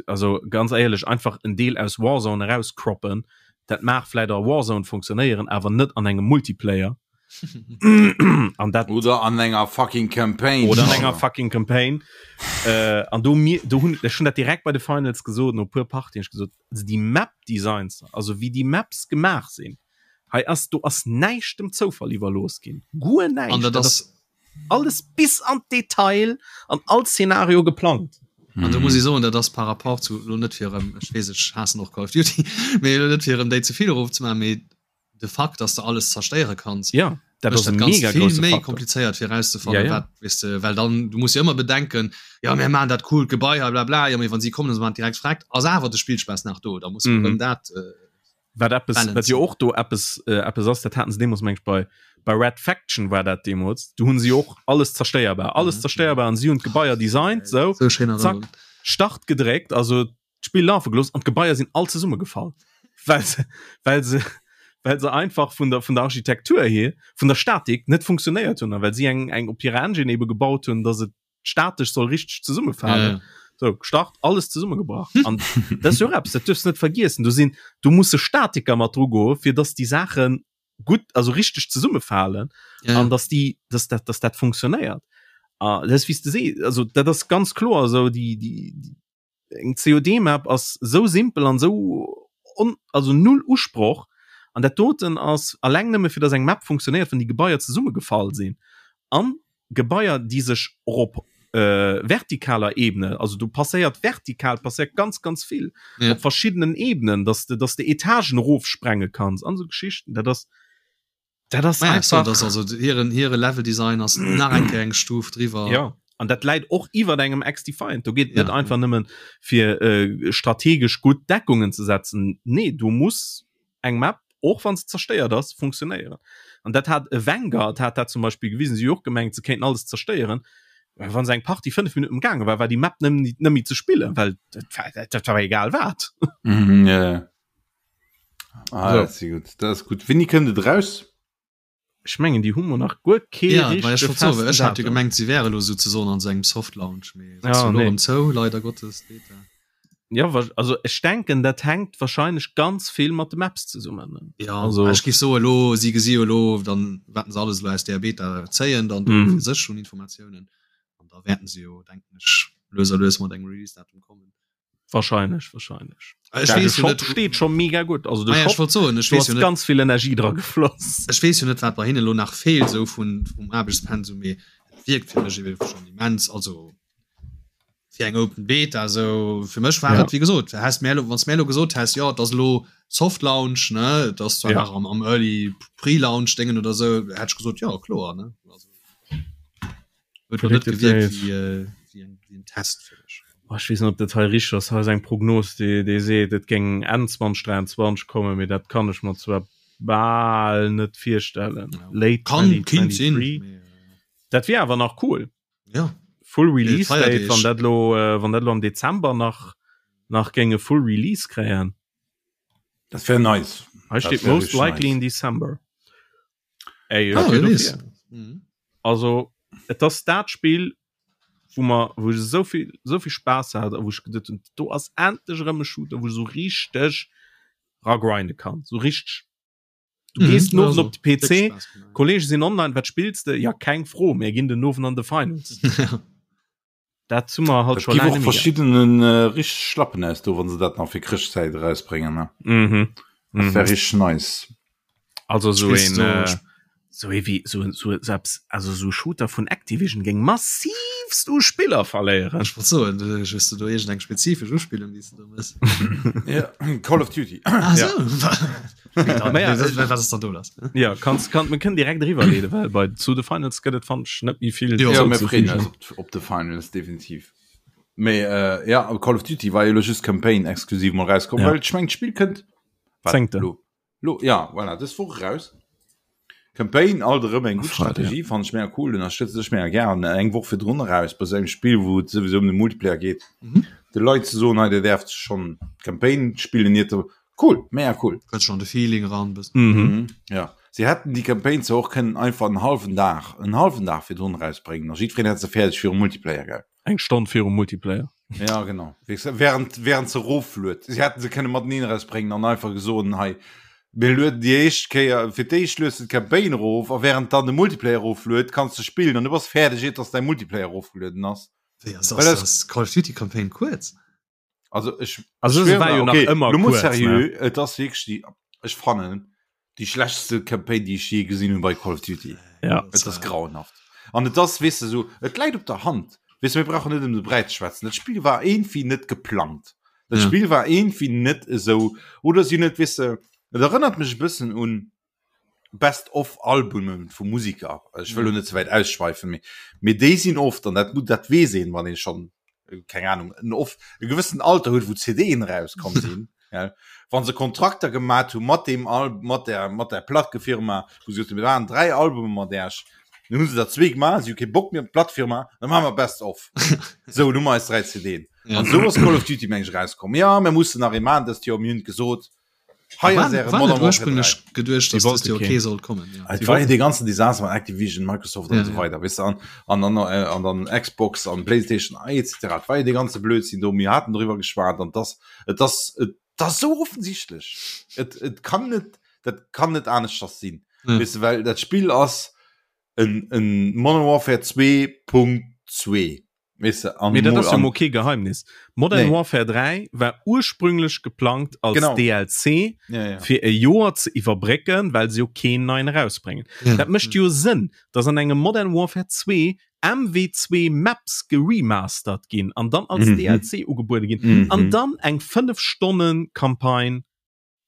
Also ganz éierlech, einfach en Deel aus Warzone erauscroppen, dat mag vläit a Warzone funktionéieren, awer net an engem Multiplayer. An dat Oder an enger fucking Campaign. Oder an enger fucking Campaign. Äh, an do mir, do hunn ech hunn dat direkt bei de Finals gesot, no puer Partien, ech gesot, also déi Map Designs, also wéi déi Maps gemaach sinn, hei ass, do ass näischt dem Zoufall iwwerlooss ginn. Guer näischt. An dat Dat ass ass alles bis an d'Detail an all Szenario geplangt. An do muss ech soen, dat ass par rapport zu, elo net fir erëm, ech weess, ech haassen och Call of Duty, mee elo net fir erëm déi ze vill erofzemaachen, mee de Fakt, dass de alles zerstéiere kanns, Ja, dat mécht ass e dat Ganzt mega vill grousse méi Faktor. komplizéiert fir erauszefannen, Ja, ja. wat, weess de, well dann, du muss jo ëmmer bedenken, jo mir maachen dat coolt Gebai hei blabla, jo mee wann si kommen a se maachen et direkt vreckt, ass awer de Spillspaass nach do, da muss man Mhm. erëm dat äh, Wat eppes, wat balancen. jo och do eppes, äh, eppes ass, dat haten se deemools meng ech bei, bei Red Faction war dat deemools, do hunn si och alles zerstéierbar, alles Mhm. zerstéierbar an si hunn d'Gebaier designt, sou, Sou schéin zack, Erënnerung. Start gedréckt, also d'Spill lafe gelooss an d'Gebaier sinn all zesummegefall, well se, well se, well se einfach vun der, vun der Architektur hier, vun der Statik net funktionéiert hunn a well si eng, eng op hirer Engine ebe gebaut hunn, dass et statesch soll richteg zesummefalen. Ja, ja. So, gestart, alles zesummegebrach. An dat ass jo och eppes, dat duerfs net vergiessen. Do sinn, do musse Statiker mat dru goe fir dass déi Saache gutt, also richteg zesummefalen Ja, ja. an dass déi, dass dat, dass dat funktionéiert. A dat ass wéi s de sees, also dat ass ganz kloer esou, déi, déi, déi eng COD-Map ass sou simpel an sou on, also null Usproch an dat doten ass alleng nëmme fir dass eng Map funktionéiert, wann déi Gebaier zesummegefall sinn an Gebaier déi sech och op äh, vertikaler Ebene, also do passéiert vertikal passéiert ganz ganz vill Ja. op verschiddenen Ebenen, dass de dass de Etagen erofsprenge kanns an sou Geschichten, dat ass Dat ass Naja, so, einfach das also hiren hire Level Design ass nach eng Kéier eng Stuf driwwer. Ja an dat läit och iwwer engem X-Defiant. Do geet Ja, net einfach nëmmen fir äh, strategesch gutt Deckungen ze setzen. Nee, du muss eng Map och wann se zerstéiert ass funktionéieren. An dat hat e Vanguard hat dat zum Beispiel gewisen, si hu och gemengt se kéinten alles zerstéieren. Wann se eng Partie 5 Minuten gaange war, war déi Map nëmmen net méi ze spillen, well dat war, dat, dat war egal wat. Mhm, ja, ja. Ah, So. dat ass gutt. Dat ass gutt. Wéini kënnt et raus? Ech mengen déi hu mer nach guer kee Ja, well ech richtege wollt soen, well festen ech hat jo Datum. gemengt, si wäre lo souzesoen an sou engem Soft Launch, mee et ass Ja, jo lo nee. erëm zou, leider Gottes, d'Beta. Ja, wa- also ech denken, dat hänkt wahrscheinlech ganz vill mat de Maps zesummen. ne? Ja, Also- ech géif soen, elo, si gesi jo elo dann, wat se alles elo aus där Beta zéien, dann do Mhm. fir sech un Informatiounen. An da wäerten se jo, denken ech, lues a lues mat engem Release-Datum kommen. Wahrscheinlech, wahrscheinlech. Ech Ja, de weess jo Shop net, steet schon mega gutt. Also de Ah ja, ech Shop, wollt soen, ech do weess ass jo net, ganz vill Energie dra gefloss. ech weess jo net, wat bei hinne lo nach feelt, sou vun, vum Aarbechtspensum, mee et wierkt fir mech ebe schonn immens, also fir eng Open Beta, sou fir mech war Ja. et, wéi gesot, häss mär lo, wann s mär lo gesot häss, jo, et ass elo Soft Launch, ne, et ass zwar Ja. nach am, am Early Pre-Launch Déngen oder sou, hätt ech gesot, jo, kloer, ne, also. Huet net gewierkt wéi, äh, wéi, eng, wéi en Test fir mech. Oh, ech weess net, ob dat hei richteg ass. Hei ass eng Prognos, déi, déi seet, et géing Enn 2023 kommen, mee dat kann ech mer zwar bal net virstellen. Ja. Late Kann, kinnt sinn. 2023. Mee, äh, Dat wier awer nach cool. ja. Full Release Date, Feierdeeg. wann dat lo, äh, wann dat lo am Dezember nach, nach géing e Full Release kréien. Dat wär nice. Hei Dat steet wär most richtig likely nice. in December. Ey, Ah, ech wier wer weess. dofir. Mhm. Also et ass dat Spill, wou mer wou ech esou vill esou vill Spaass hat a wou ech geduet hunn, do ass endlech erëm e Shooter, wou ech esou richteg ragrinde kann, esou richteg. Du Mhm, gees den Owend also, op de PC, déck Spaass gemaach. Kollege sinn online, wat spills de? Ja keng Fro, mir ginn den Owend an de Finals. Dat hu mer halt Et scho gi laang och net méi gehat. verschiddenen äh, richteg Schlappen aus do, wann se dat nach fir Chrëschtzäit erausbréngen. Ne? Mhm. Dat Mhm. wär richteg nice. Also esou Spills een du äh, sp- Sou ee wéi sou sou eppes, also sou Shooter vun Activision géing massivst u Spiller verléieren. Ech wollt soen, hues de do iergend eng spezifesch Uspillung, déi s de do mëss? Ja, Call of Duty. Ah sou. Ja. Wat ass dann do lass? Ja, kanns, kann, mir kënnen direkt eriwwerleeden, well bei zu The Finals gëtt et, fannen ech, net méi vill. Jo, mir freeën eis op, op The Finals, definitiv. Mee äh, ja, Call of Duty war jo lo just Campaign exklusiv mol rauskomm, ja. well ech mengen d'Spill kënnt Zéngte. Lo. Lo, ja, voilà, dës Woch eraus. Campaign alt erëm eng gutt Strategie, fannen ech mega cool, ënnerstëtze ech mega gären. Eng Woch virdrun eraus bei esou engem Spill, wou et souwisou ëm de Multiplayer geet, mhm. de Leit ze soen, hei dir däerft schonn d'Campaign spillen, iert der cool, mega cool. Kënnt schonn de Feeling eran bëssen. Mhm. Mhm. Ja, si hätten déi Campaign zwar och kënnen einfach en hallwen Dag, en hallwen Dag virdrun erausbréngen a jiddwereen hätt se fäerdeg virum Multiplayer, gell? Eng Stonn virum Multiplayer. Ja genau während während se rofluet. Si hätten se kënne mateneen erausbréngen an einfach gesoen hei mir lueden déi éischt Kéier fir d'éischt lues de d'Campaign erof a während dann de Multiplayer erofluet kanns de spillen an du bass fäerdeg iert dass däi Multiplayer erofgelueden ass. Wéi ass ass ass Call of Duty Campaign kuerz? Also ech Also se war jo nach okay, ëmmer lo mol kuerz, ne? seriö, et ass wierklech déi ech fannen déi schlechtste Campaign déi ech je gesinn hunn bei Call of Duty. Ja. Et ass grauenhaft. An et ass weess de sou, et läit op der Hand. Weess de, mir brauchen net ëm de Bräi ze schwätzen. Dat Spill war iergendwéi net geplangt. Dat Ja. Spill war iergendwéi net esou oder si hunn et weess de, et erënnert mech e bëssen un Best of Albumen vu Musiker. Ech wëll lo net ze wäit ausschweifen, mee mee déi sinn oft, an dat dat weess een, wann ee schonn, keng Ahnung, en of e gewëssenen Alter huet, wou CDen erauskomm sinn, gell, wa se Kontrakter gemat hu mat deem Al mat der mat der Plackefirma, wou se gesot hunn, mir maachen 3 Albume mat Äech, dann hu se der zwee gemaach, si hu kee Bock méi op d'Plackefirma, da maache mer Best of. Sou, elo hu mer eis 3 CDen. An esou ass Call of Duty, meng ech, erauskomm. Jo, mir mussen nach ee maachen dëst Joer, mir hunn et gesot. Hei ass äre Modern Warfare 3. Geduecht, dass das okay soll kommen. Ja. Et war jo dee ganzen Desaster mat Activision, Microsoft an esou weider, weess de, an, an, an, an dann Xbox an Playstation etc. Et war jo dee ganze Blödsinn do, mir haten doriwwer geschwat an dass, et ass, et ass esou offensichtlech. Et, et kann net, dat kann net aneschters sinn, Ja. weess de, well dat Spill ass en, en Modern Warfare 2.2. Weess de, an Mee dat mol ass jo an mol kee Geheimnis. Modern Nee. Warfare 3 war ursprünglech geplangt als Genau. DLC Ja, ja. fir e Joer ze iwwerbrécken, well se jo keen neien erausbréngen. Ja. Dat mécht jo Sënn, dass an engem Modern Warfare 2 MW2 Maps geremastert ginn an dann als Mhm. DLC ugebuede ginn Mhm. an dann eng 5 Stonnen Campagne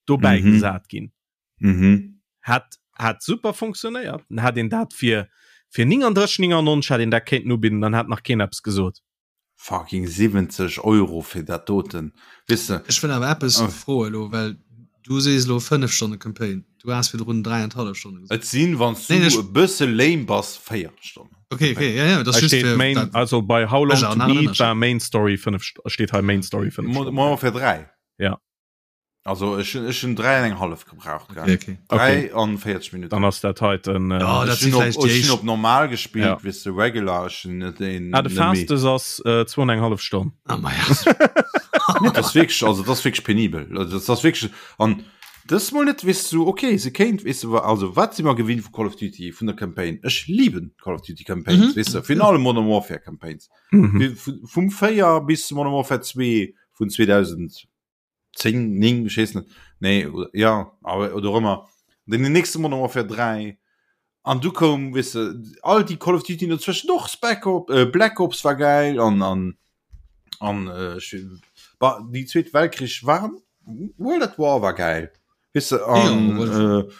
dobäi Mhm. gesat ginn. Mhm. Hat hat super funktionéiert. Dann hat een dat fir fir 39,99 hat een dat kéinten ubidden, dann hat nach keen eppes gesot. Fucking 70 Euro fir dat doten, weess de. Ech wëll awer eppes Oh. froe lo, well du sees lo 5 Stonne Campaign, du has virdrun 3,5 Stonne gesot. Et sinn, wann s du Nee, ech- e bësse lame bass, 4 Stonnen. Okay, okay, ja, ja, dat ass Hei just steet fir Main, dat- also bei How Long Ech to an Beat Ënnerscheed. war Main Story 5 St steet hei Main Story 5 Modern Stonnen. Warfare 3. Ja. Also ech hunn ech hunn 3 an eng hallef gebraucht Okay, okay. 3 an 40 Minuten. Dann ass dat heiten äh, Ja, dat Ech si hunn op, vläicht déi ech hunn éischt. op normal gespillt, Ja. weess de regular, ech hunn net een ah, de net méi. fastest ass äh, 2 an eng hallef Stonn. Ah, ma ja. Nee, dat ass wierklech, also dat ass wierklech penibel. Also dat ass wierklech an dës mol net weess du, okay, se kéint weess du, also wat si mer gewinnt vu Call of Duty vun der Campaign? Ech liben Call of Duty Campaigns, Mhm. weess de, virun allem Modern Warfare Campaigns. Mhm. Vum 4 bis zu Modern Warfare 2 vun 2000 10 9 ech weess net nee oder ja awer oder ëmmer den den nächste Modern Warfare 3 an du koum weess de all déi Call of Duty dozwëschen och Spec Op äh, Black Ops war geil an an an äh, ech war déi zweet Weltkrich waren World at War war geil weess de an Ja, World äh,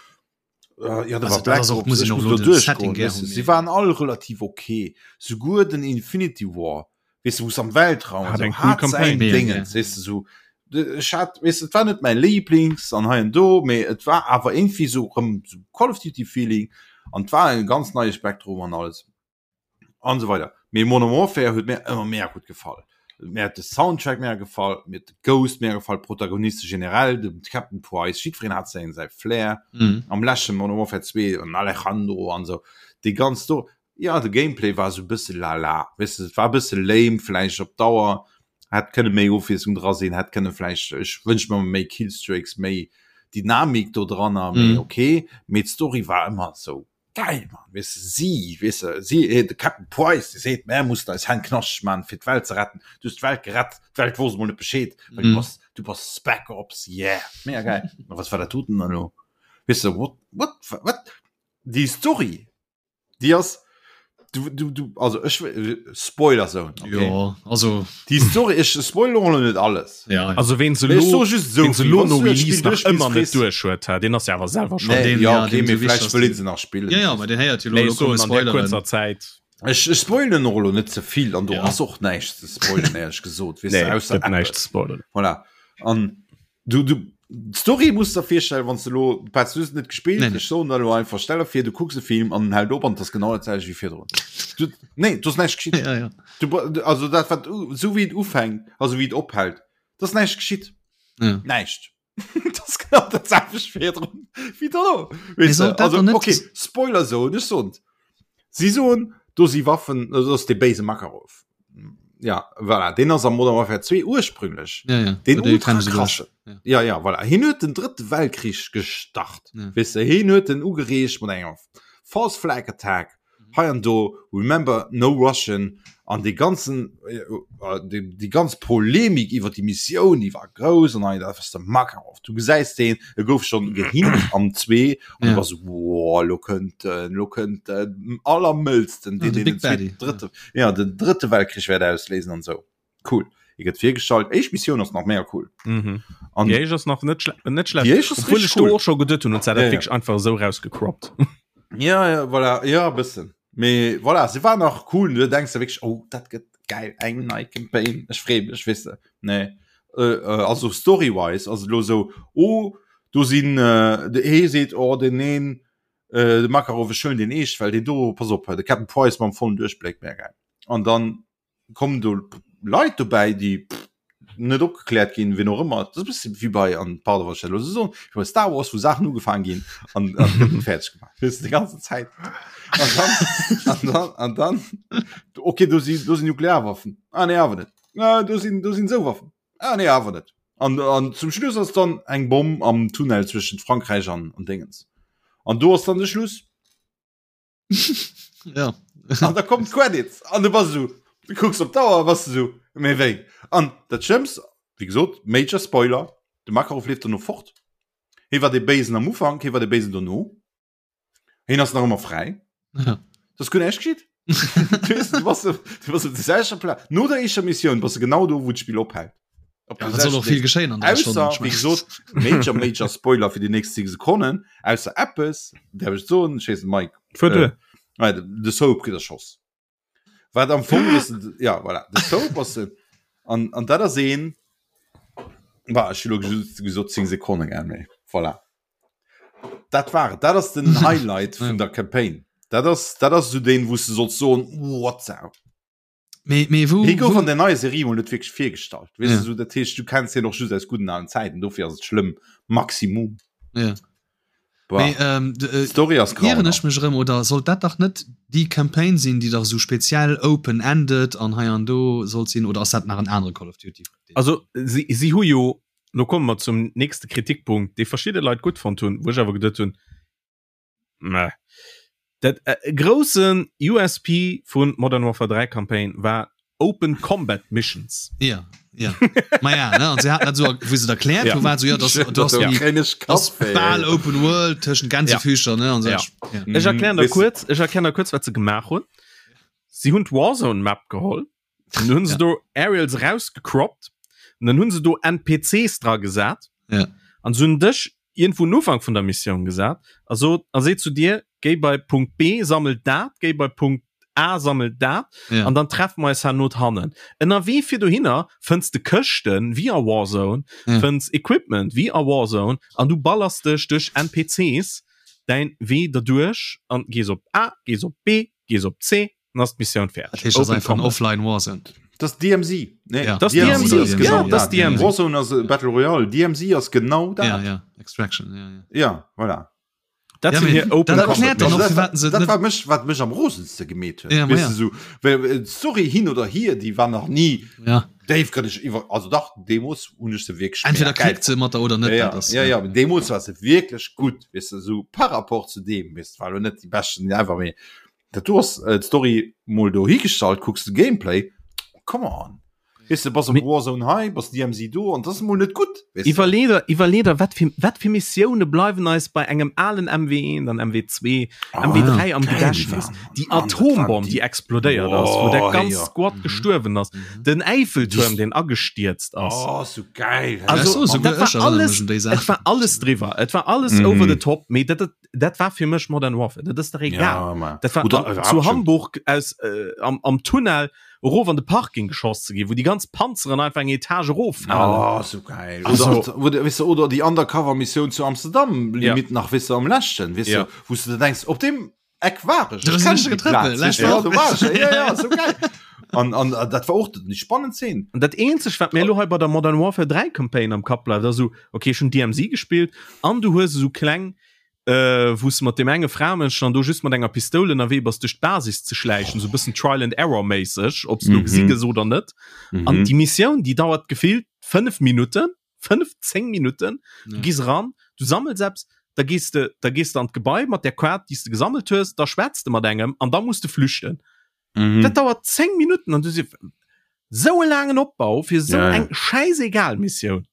Äh, ja, da Also war dat Black ass och, Ops, muss ech een och muss elo do den Setting duerchgoen, gär weess de. hunn, Si mee- waren all relativ okay. Souguer den Infinity War, weess de, wou se am Weltraum Hat so, eng cool hat Campaign. säin Mega Dingens, gär. weess de, so. De- Ech hat, weess de, et war net mäin Lieblings an hei an do, mee et war awer irgendwie so rëm so Call of Duty Feeling an et war e ganz neie Spektrum an alles. An esou weider. Mee Modern Warfare huet mir ëmmer mega gutt gefall. Mir huet de Soundtrack mega gefall, mir huet de Ghost mega gefall, d'Protagoniste generell, de Captain Price, jiddwereen hat säin säi Flair. Mhm. Am leschte Modern Warfare 2 an Alejandro an esou, déi ganz do. Ja, de Gameplay war esou e bësse lala, weess de, et war e bësse lame vläicht op Dauer, hätt kënne méi Ofwiesslung dra sinn, hätt kënne vläicht, ech wënsch mer méi Killstreaks, méi Dynamik do dranner, mee Mhm. okay. Mee d'Story war ëmmer esou Geil, Mann, weess de, si, weess de, si, de Captain Price, dee seet, mär mussen eis Hänn knaschteg man, fir d'Welt ze retten. Du hues d'Welt gerett, d'Welt wosst emol net Bescheed, well du Mhm. bass, du bass Spec Ops, yeah, mega geil. Ma was war dat doten dann elo? Weess de, what, what, wat? Déi Story, déi ass du, du, du, also ech Spoiler Zone. Okay. Ja, also déi Story ech spoil och net alles. Ja, ja. Also ween se Mee ech lo so just so ween se vill. lo Wann no du dat Release Spill nach duerchspills, ëmmer net frees- duerch huet, ha, deen ass ja awer selwer schon. Nee, den- ja, ja, okay, den mee so wichtig vläicht ass wëll den- een se nach spillen. Ja, ja, bei den héiert jo Nee, lo ech soen komme an der Spoileren. kurzer Zäit. Ech, ech spoilen och lo net ze vill an do Ja. ass och näischt ze spoilen, éierlech gesot, weess Nee, du, ausser gëtt näischt eppes. ze spoilern. Voilà. An du, du, d'Story muss der virstellen, wann du lo, Petz, du hues net gespillt, Nee, nee. ech soen der lo einfach, stell der vir, du kucks e Film an en hält op an 't ass genau dat selwecht wéi virdrun. Du, nee, do ass näischt geschitt. Ja, ja. Du, du, also dat wat u, sou wéi et ufänkt, also wéi et ophält, dat ass näischt geschitt. Ja. Näischt. Dat ass genau dat selwecht virdrun wéi dono. Mee Weess de, sollt dat also dann net- okay, Spoiler soen, ech soen Si soen, do si Waffen, dat ass dee béise Makarov. Ja, voilà, deen ass am Modern Warfare 2 ursprünglech. Ja, ja. Den Dee ultra kennen se krassen. Ja. Ja, ja, voilà. Hien huet den drëtte Weltkrich gestart. Ja. Weess de, hien huet den ugereegt mat enger False Flag Attack. Hei an do, remember, no Russian. An dee ganzen, äh, äh, déi, déi ganz Polemik iwwer déi Missioun, déi war grouss an hei, dat ass de Makarov. Du gesäis deen, e gouf schonn gehint am 2 an Ja. du bass wow, lo kënnt en, lo kënnt den allermëllsten, Ja, deen de den Big Daddy, zweeten, drëtte, ja, den drëtte Weltkrich wäert ausléisen an esou. Cool. E gëtt virgestallt. Éischt Missioun ass nach mega cool. Mhm. An Déi éischt ass nach net, schle net schlecht. Déi éischt ass Obwohl richtig ech do cool. och scho geduet hunn, und zwar Ja, dat ja. wierklech einfach esou rausgecroppt. Ja, ja, voilà, ja, e bëssen. Mee voilà, se war nach cool. Du denkst dir wierklech, oh, dat gëtt geil, eng nei Campaign. Ech free mech, weess de. Nee. Äh, äh, also story-wise, also lo sou, oh, do sinn, äh, de ee seet, oh, den een, äh, de Makarov, ech huelen deen eescht, well deen do, pass op, de Captain Price mam vollen Duerchbléck, mega geil. An dann kommen do Leit dobäi, déi net opgekläert ginn, wien och ëmmer. Dat ass e bësse wéi bei, an pardon, wann ech dat elo esou soen, wéi bei Star Wars, wou Saachen ugefaangen ginn an an gëtt net fäerdeg gemaach. Weess de, déi ganze Zäit. An dann, an dann, an dann, okay, do si, do sinn Nuklearwaffen. Ah nee, awer net. Ah, do sinn, do sinn esou Waffen. Ah nee, awer net. An, an zum Schluss ass dann eng Bomm am Tunnel zwëschent Frankräich an, an Dingens. An do ass dann de Schluss. ja. An da kommt Credits an du bass so du kucks op d'Auer bass du so méi wéi an dat Schlëmmst wéi gesot Major Spoiler de Makarov leeft dono fort hie war dee Béisen am Ufank hie war dee Béisen dono hien ass nach ëmmer fräi Ja. das guer näischt geschitt du weess, du bass du bass op der selwechter Plaz no der éischter Missioun bass du genau do wou d'Spill ophält Op Ja, der wat soll och selwechten vill geschéien an der Stonn, Ausser, ich wéi mein. gesot, Major, Major Spoiler fir déi nächst 10 Sekonnen, ausser eppes, däerf ech soen, ech weess net, Mike, Fuer duer. äh, de, de Soap kritt erschoss. Wat am Fong ass, ja, voilà, de Soap ass en, an, an dat ass een, bah, ech hu lo just gesot 10 Sekonnen, gell, mee voilà. Dat war et, dat ass den Highlight vun der Campaign. Dat ass, dat ass esou deen, wou s de solls soen, what the. Mee, mee wou, Hie gouf wou an der neier Serie mol net wierklech virgestallt. Weess Ja. du, so, dat heescht, du kenns hien och just aus gudden alen Zäiten, dofir ass et schlëmm. Maximum. Ja. Boah. Mee, ähm, d- äh, D'Story ass ieren ech grauenhaft. mech erëm oder sollt dat dach net déi Campaign sinn, déi dach esou speziell open-ended an hei an do sollt sinn oder ass dat nach en anere Call of Duty? Also si, si hu jo, lo komme mer zum nächste Kritikpunkt, dee verschidde Leit gutt fonnt hunn, wou ech awer geduet hunn, Meh. Dat äh, groussen USP vun Modern Warfare 3 Campaign war Open Combat Missions. Ja, ja. Ma ja, ne? An se haten dat so, wou se et erkläert Ja. hu, war so, ja, das, du hast Ja. die, Kréien ech das Kappwéi, bal ey. Open World tëschent Gänsefüßcher, ne? An so, Ja. ja. Ech erklären der Weess du- kurz, ech erklären der kurz, wat se gemaach hunn. Si hunn d'Warzone Map geholl, dann hunn se Ja. do Aerials rausgecroppt, und dann hunn se do NPCs dra gesat. Ja. An se hunn dech iergendwou un Ufank vun der Missioun gesat a sot a seet zu dir, géi bei Punkt B, sammel dat, géi bei Punkt A, sammel dat, Ja. an dann treffe mer eis herno hannen. Ënnerwee fir dohinner fënns de Këschten, wéi a Warzone, Ja. fënns Equipment, wéi a Warzone, an du ballers dech duerch NPCs däin Wee derduerch an gees op A, gees op B, gees op C, Dann ass d'Missioun Dat fäerdeg. heescht, das Open einfach en Combat. Offline Warzone. Das ist DMZ. Nee, Ja. Das DMZ DMZ, ass ja, genau das dat. DMZ. Warzone ass äh, Battle Royale. DMZ ass genau dat. Ja, ja. Extraction, ja, ja. Ja, voilà. Dat Ja, sinn mee hir Open dat Combat erkläert dann Missions. och, dat, firwat se dat net- war mech, wat mech am rosenste gemeet huet. Ja, ma Weess ja. du, so, well, äh, d'Story hin oder hier, déi war nach nie Ja. déifgrënneg iwwer, also dach, deemools hunn ech se wierklech Entweder mega geil klickt se mat der oder net. Ja, ja, dat ass, ja, ja, deemools war se wierklech gutt, weess du, so par rapport zu deem, weess du, war lo net déi beschten ever, mee dat do ass äh, d'Story mol dohi gestallt, kucks de Gameplay, come on. Weess de, bass am Warzone hei, bass DMZ do an dat ass emol net gutt. Iwwerlee der, iwwerlee der, wat fir, wat fir Missioune bleiwen eis bei engem alen MW1, dann MW2, ah, MW3 am Gedächtnis. Déi Atombomm, déi explodéiert ass, wou der ganz Squad mhm. gestuerwen ass. Mhm. Den Eiffeltuerm, den agestierzt ass. Oh, so geil. Also, so, dat war alles, et war alles driwwer. Et war alles mhm. over the top. Mee dat, dat, dat war fir mech Modern Warfare. Dat ass der egal. Ja, dat war Oder, an, zu Hamburg aus, äh, am, am Tunnel erof an de Parking geschoss ze ginn, wou déi ganz Panzeren einfach eng Etage eroffalen. Oh, so geil. Also, oder, oder, weißt du, oder déi Undercover-Missioun zu Amsterdam, Limit ja. nach, weißt du, am leschten, weißt ja. du, wou du denkst, op dem Eck war ech. Ich kenn die Platz, weißt du, ja, do war ech. Ja, ja, so geil. An, an dat war och déi spannend Szene. An dat eenzegt, wat mir elo hei bei der Modern Warfare 3 Campaign am Kapp bleift, ass esou, okay, ech hunn DMZ gespillt an du hues esou kleng äh, wou s de mat deem enge Framënsch dann do just mat enger Pistoul ënnerwee bass duerch d'Basis ze schläichen, sou bëssen Trial and Error méisseg, ob s du gesi gëss oder net. Mhm. An déi Missioun, déi dauert gefillt 5 Minutten, 5, 10 Minutten. Du ja. gees ran, du sammels eppes, da gees de, da gees de an d'Gebai mat der Kaart, déi s de gesammelt hues, da schwätz de mat engem an da muss de flüchten. Mhm. Dat dauert 10 Minutten an du si sou e laangen Opbau fir sou ja, ja. eng schäisegal Missioun.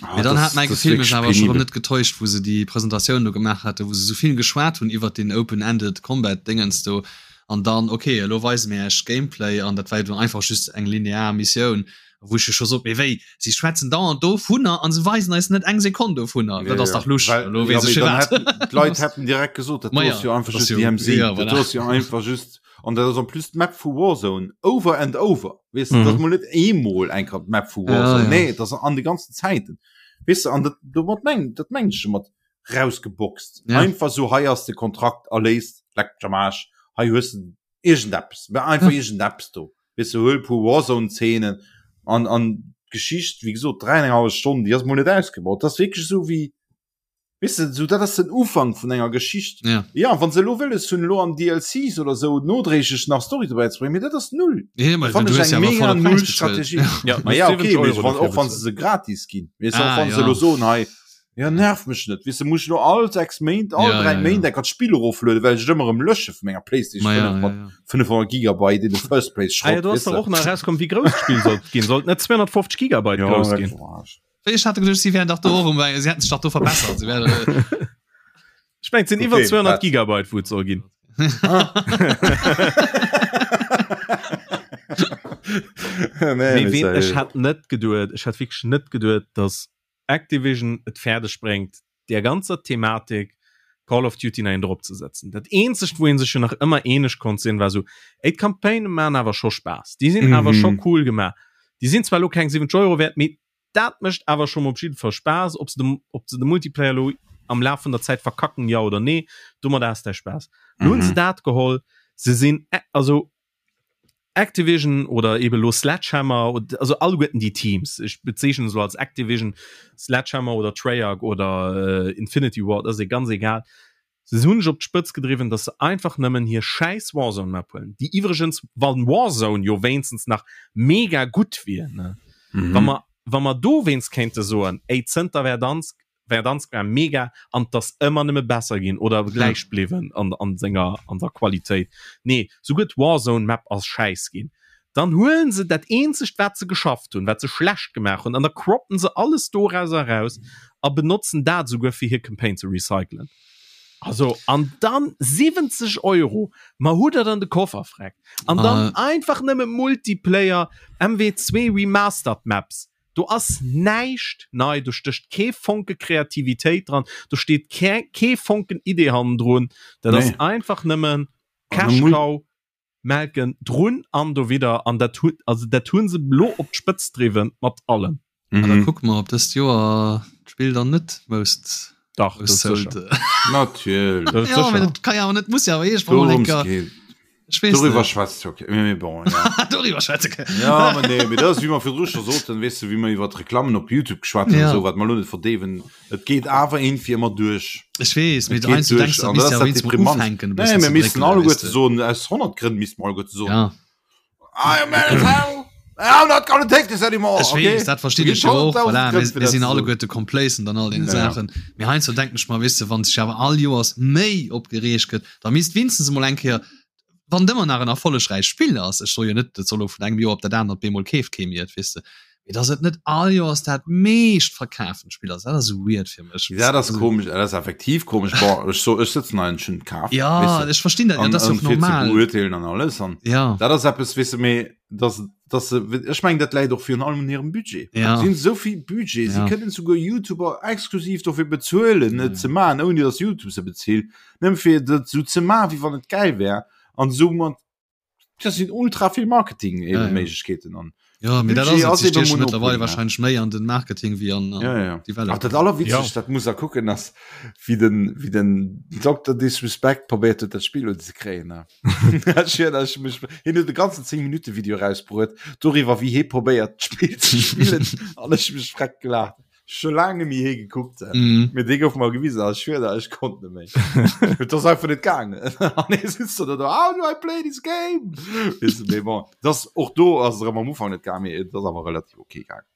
Ah, ja, dann hat mein Gefill mech awer schon net getäuscht, wo se die Präsentatioun do gemaach hatte, wo se soviel geschwat hunn iwwer den Open-Ended Combat Dingens do an dann okay, elo weise mir Iech Gameplay an dat war dann einfach just eng linear Missioun, wou ech scho sot, mee wéi, si schwätzen dauernd dovunner an se weisen eis net eng Sekonn dovunner, dat ass dach lusch, elo weess ech firwat. D'Leit hätten direkt gesot, dat do ass jo einfach just DMZ, dat do ass jo einfach just An dat ass en plus d'Map vu Warzone over and over. Weess de, mm. dat ass mol net eemol eng Kéier d'Map vu Warzone. Ja, ja. Nee, dat ass an de ganzen Zäiten. Weess de, an dat, domat meng, dat meng ech mat rausgeboxt. Ja. Einfach so, hei ass de Kontrakt erléist, leck mech am Aarsch, hei hues de iergendeppes, mä einfach ja. iergendeppes do. Weess de, huel e puer Warzone-Szenen an, an d'Geschicht, wéi gesot, dräienenghallef Stonn, déi ass mol net ausgebaut. Dat ass wierklech esou wéi, Weess de, sou dat ass den Ufank vun enger Geschicht. Ja. Ja, wann se elo wëlles hunn, elo an DLCs oder sou nodréiglech nach Story dobäi ze bréngen, mee dat ass null. Ja, ma Fannen du ech hues eng ja awer mega volle null Präis bezuelt. Strategie. Ja, Ma du ja, hues okay, 70 mee Euro wann, dofir och wann se bezuelt. se gratis ginn. Weess de, och Ah, wann se ja. elo soen, hei, ja nerv mech net, weess de, muss ech elo all 6 Méint, all Ja, 3 ja, ja. Méint eng Kéier d'Spill eroflueden, well ech et ëmmer erëm lösche vu menger PlayStation Ma 5 ja, ja, mat ja. 500 Gigabyte in the first place Ah ja, Schrott, do ass weess dach de. och nach erauskomm, wéi grouss d'Spill sollt ginn. Sollt net 250 Gigabyte Ja, grouss dat ginn? war ech. Ech hat geduecht, si wären dach do och um, si hätten sech dach do verbessert. Si wären, äh, Ech mengen, et sinn iwwer Okay, 200 wat? Gigabyte, wou et soll ginn. Nee, Mee mee ween, ech seriö. hat net geduet, ech hat wierklech net geduet, dass Activision et fäerdeg bréngt, där ganzer Thematik Call of Duty nach een drop ze setzen. Dat eenzegt, wou ee sech jo nach ëmmer eeneg konnt sinn, war esou, ey, d'Campaignë maachen awer scho Spaass, déi sinn awer scho Mhm. cool gemaach. Déi sinn zwar elo keng 70 Euro wäert, mee Dat mécht awer scho mol op jidde Fall Spaass. Ob se de, ob se de Multiplayer elo am Laf vun der Zäit verkacken, jo oder nee, domat has däi Spaass. Lo hunn se dat geholl, se sinn, also Activision oder eben elo Sledgehammer, also alleguerten déi Teams, ech bezeechnen se elo als Activision, Sledgehammer oder Treyarch oder Infinity Ward, ass e ganz egal, Se hunn sech op d'Spëtz gedriwwen, dass se einfach nëmmen hir schäiss Warzone Map huelen, déi iwwregens, wann Warzone jo wéinstens nach mega gutt wier, ne, wa mer, wa mer dowéinst kéinte soen, ey, zënter Verdansk, Verdansk war mega an 't ass ëmmer nëmme besser ginn oder gläich bliwwen an, an senger, an der Qualitéit. Nee, souguer d'Warzone Map ass schäiss ginn. Dann huelen se dat eenzegt wat se geschafft hunn, wat se schlecht gemaach hunn, an da croppen se alles dorauser eraus a benotzen dat esouguer fir hir Campaign ze recyclen. Also an dann 70 Euro, ma hutt der dann de Koffer freck. An dann einfach nëmme Multiplayer, MW2 Remastered Maps. Do ass näischt nei, do stécht kee Fonke Kreativitéit dran, do steet kee Fonken Idee hannendrun. Dat ass einfach nëmmen Cash Cow. Melken drun an dowidder an dat hu also dat hu se lo op d'Spëtzt driwwen mat allem. Mhm. Da kucke mer op dëst Joer d'Spill dann net most Dach, dat most ass sold. sécher. Natierlech. Dat ass Ja, sécher. mee dat ka jo awer net, muss jo awer iergendwann mol eng Dorëms Kéier, geet. ech weess Doriwwer net. schwätzt jo kee, mee bon, ja. Doriwwer schwätze ke. Ja, ma nee, mee dat ass wéi mer virdru scho soten, weess de, wéi mer iwwer d'Reklammen op YouTube geschwat hunn, Ja. esou, wat mer elo net verdeewen, Et geet awer iergendwéi ëmmer duerch. Ech weess, mee Et geet heiansdo duerch denkst du, an misst dat ja ass dat wéinst mol Deprimant. ufänken e Nee, bëssen mir ze missten dréckelen, alleguerte weess de. soen, aus 100 Grënn misste mer alleguerte soen, Ja. I am mad as hell, I'm not gonna take this anymore, Ech okay? weess, dat verstinn Do ech ginn jo och, 100.000 voilà, Grënn mir, fir mir dat sinn ze soen. alleguerte complacent an all deene Ja, ja. Saachen. Mee heiansdo denken ech mer, weess de, wann sech awer all Joers méi opgereegt gëtt, da misst wéinstens emol eng Kéier. Wann et ëmmer nach en erfollegräicht Spill ass, ech soe jo net, et soll elo vun engem Joer op dat anert bemol keeft kee méi et, weess de, mee dass et net all Joers dat meescht verkafent Spill ass, dat ass esou weird fir mech. Dat ass komesch, dat ass effektiv komesch. Bon, ech so, ech sëtzen hei an ech hunn et kaf. Ja, ech verstinn dat, dat ass jo och normal. Fir ze beurteelen an alles an ja. dat ass eppes, weess de, mee dass dass se, ech mengen dat läit och virun allem un hirem Budget. Ja. Si hunn esou vill Budget, si Ja. kënnen souguer YouTuber exklusiv dofir bezuelen, et ze maachen, ouni dass YouTube se bezilt, nëmme fir dat esou ze maachen, wéi wann et gäil wär an soumat, dat sinn ultra vill Marketing Ja, ja. Méiglechkeeten an Ja, mee dat Budget ass ass et, si eben stieche Monopol, mëttlerweil ne? wahrscheinlech méi an den Marketing wéi an, an Ja, ja. Ach, Development. dat allerwitzegst, dat muss er kucken, ass wéi den, wéi den Dr. Disrespect probéiert huet, dat Spill unzekréien, ne? Hien huet e ganzen 10 Minuten Video rausbruet doriwwer wéi hie probéiert d'Spill ze spillen an ech mech freck gelacht. Scho laang net méi hie gekuckt. Mm. Mir dee gouf mer gewisen a ech schwör der ech konnt net méi. Et ass einfach net gaangen. An hie sitzt do do How do I play this game? Weess de, mee bon, dat och do ass et erëm am Ufank net gaangen, mee et ass awer relativ ok gaangen.